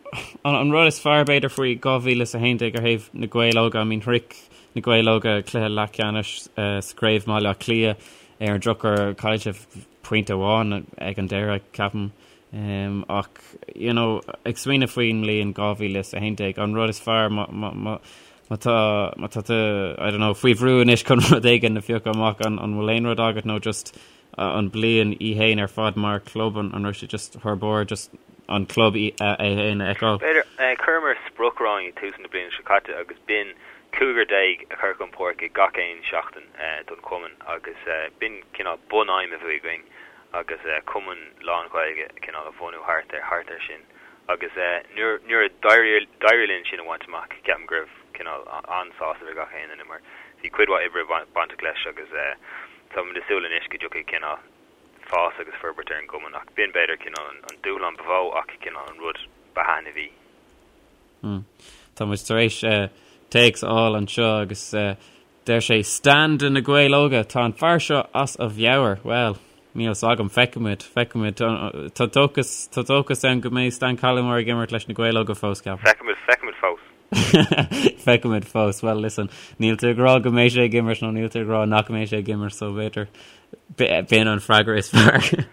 an, an rud is fearr b'fhéidir faoi 2011 ar thaobh na Gaeil Óga, I mean, shroich na Gaeil Óga cluiche leathcheannais uh, sa gCraobh Bhaile Átha Cliath ar an drochuair chaill sibh pointe amháin ag an deireadh, ceapaim. Ach, you know, ag smaoineamh faoin mbliain 2011, an rud is fearr má, má, má, má tá, má tá tú, I don't know, faoi bhrú anois chun rud éigin a phiocadh amach, an, an bhfuil aon rud agat nó just an bliain í fhéin ar fad mar club, an, an raibh sé just thar barr, just an club í, é fhéin a fheiceáil? B'fhéidir, chuireamar sprioc romhainn ag tús na bliana seo caite agus b'in cúigear déag a chur chun páirce gach aon seachtain don chumann agus b'in cineál bunaidhm a bhí againn agus cumann lán-Ghaeilge cineál a bhunú thart ar thart air sin agus nuair nuair a d'éirigh d'éirigh linn sin a bhaint amach ceapaim go raibh cineál an-sásamh ar gach aon duine mar bhí cuid mhaith oibre bainteach leis agus táimid ag súil anois go dtiocfaidh cineál fás agus forbairt ar an gcumann ach b'in b'fhéidir cineál an an dúshlán ba mhó ach cineál an rud ba thaitneamhaí. Tá muid tar éis téacs a fháil anseo agus Deir sé, Stan de Na Gaeil Óga, tá an fear seo as a mheabhair. Bhuel, níl 's agam, feicfimid, feicfimid. Tá dóchas, tá dóchas ann go mbeidh Stan Collymore ag imirt leis na Gaeil Óga fós, ceapaim. Feicfimid, feicfimid fós. Feicfimid fós. Well, listen, níl tú ag rá go mbeidh sé ag imirt nó níl tú ag rá nach mbeidh sé ag imirt, so b'fhéidir b'in an freagra is fearr.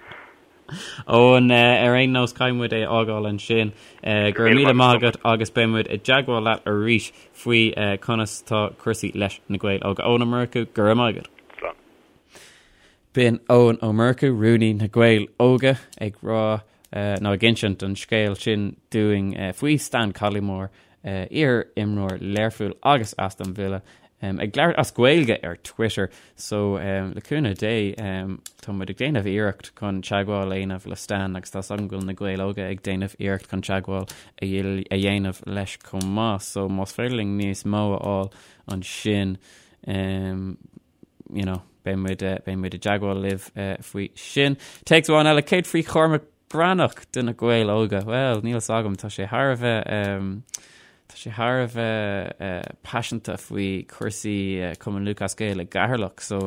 Eoin, ar aon nós, caithfidh muid é a fhágáil ansin. Go raibh míle maith agat agus beidh muid i dteagmháil leat arís faoi conas tá cúrsaí leis na Gaeil Óga. Eoin Ó Murchú, go raibh maith agat. Slán. B'in Eoin Ó Murchú, rúnaí na Gaeil Óga, ag rá nó ag insint an scéil sin dúinn faoi Stan Collymore, iar-imreoir Learphoill agus Aston Villa, ag labhairt as Gaeilge ar Twitter. So, le cúnamh Dé, tá muid ag déanamh iarracht chun teagmháil a dhéanamh le Stan agus tá 's agam go bhfuil na Gaeil Óga ag déanamh iarracht chun teagmháil a dhéanamh leis chomh maith. So, más féidir linn níos mó a fháil ansin, you know, beidh muid, beidh muid i dteagmháil libh faoi sin. Téacs amháin eile, céard faoi Chormac Breathnach de na Gaeil Óga? Bhuel, níl 's agam, tá sé thar a bheith, tá sé thar a bheith paiseanta faoi chúrsaí Cumann Lúthchleas Gael i gCeatharlach, so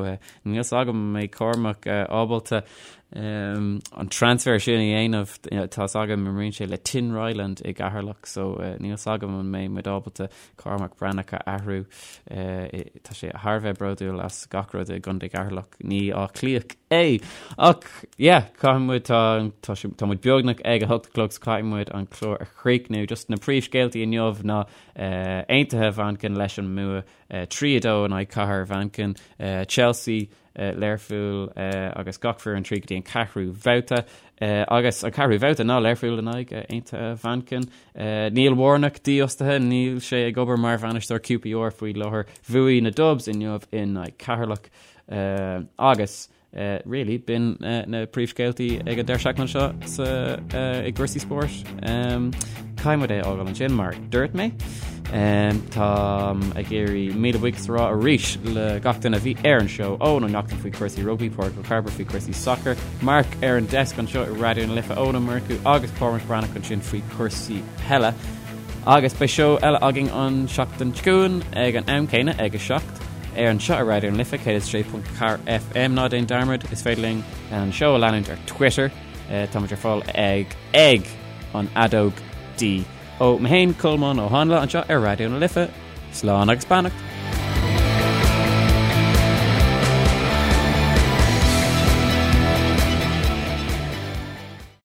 níl 's agam an mbeidh Cormac ábalta an transfer sin a dhéanamh, tá 's agam imríonn sé le Tinryland i gCeatharlach, so níl 's agam an mbeidh muid ábalta Cormac Breathnach a athrú. Tá sé thar a bheith bródúil as gach rud i gContae Cheatharlach. Ní Áth Cliathach é! Ach yeah, caithfidh muid, tá, tá sé, tá muid beagnach ag a hocht a chlog so caithfidh muid an clár a chríochnú. Just na príomhscéaltaí inniu ná Aontaithe Mhanchain leis an mbua 3-2 in aghaidh Cathair Mhanchain, Chelsea, Learpholl agus gach foireann tríd go dtí an ceathrú bhabhta. Agus an ceathrú bhabhta ná Learpholl in aghaidh Aontaithe Mhanchain. Neil Warnock dífhostaithe, níl sé ag obair mar bhainisteoir QPR faoi láthair. Bhuaigh na Dubs inniu in aghaidh Ceatharlach. Agus really, b'in na príomhscéaltaí ag an deireadh seachtaine seo sa i gcúrsaí spóirt. Caithfidh muid é a fhágáil ansin mar dúirt mé. Táim ag iarraidh míle buíochas a rá arís le gach duine a bhí ar an seó, Eoin Ó Neachtain faoi chúrsaí rugbaí, Pádraig Ó Cairbre faoi chúrsaí sacair, Mark ar an desk anseo i Raidió na Life, Eoin Ó Murchú agus Cormac Breathnach ansin faoi chúrsaí peile. Agus beidh seó eile againn an seachtain seo chugainn ag an am céanna ag 7 ar anseo ar Raidió na Life 106.4 FM. Ná déan dearmad, is féidir linn an seó a leanúint ar Twitter. Táimid ar fáil ag ag an fheadóg D. Ó mé féin, Colmán Ó Háinle, anseo ar Raidió na Life. Slán agus beannacht!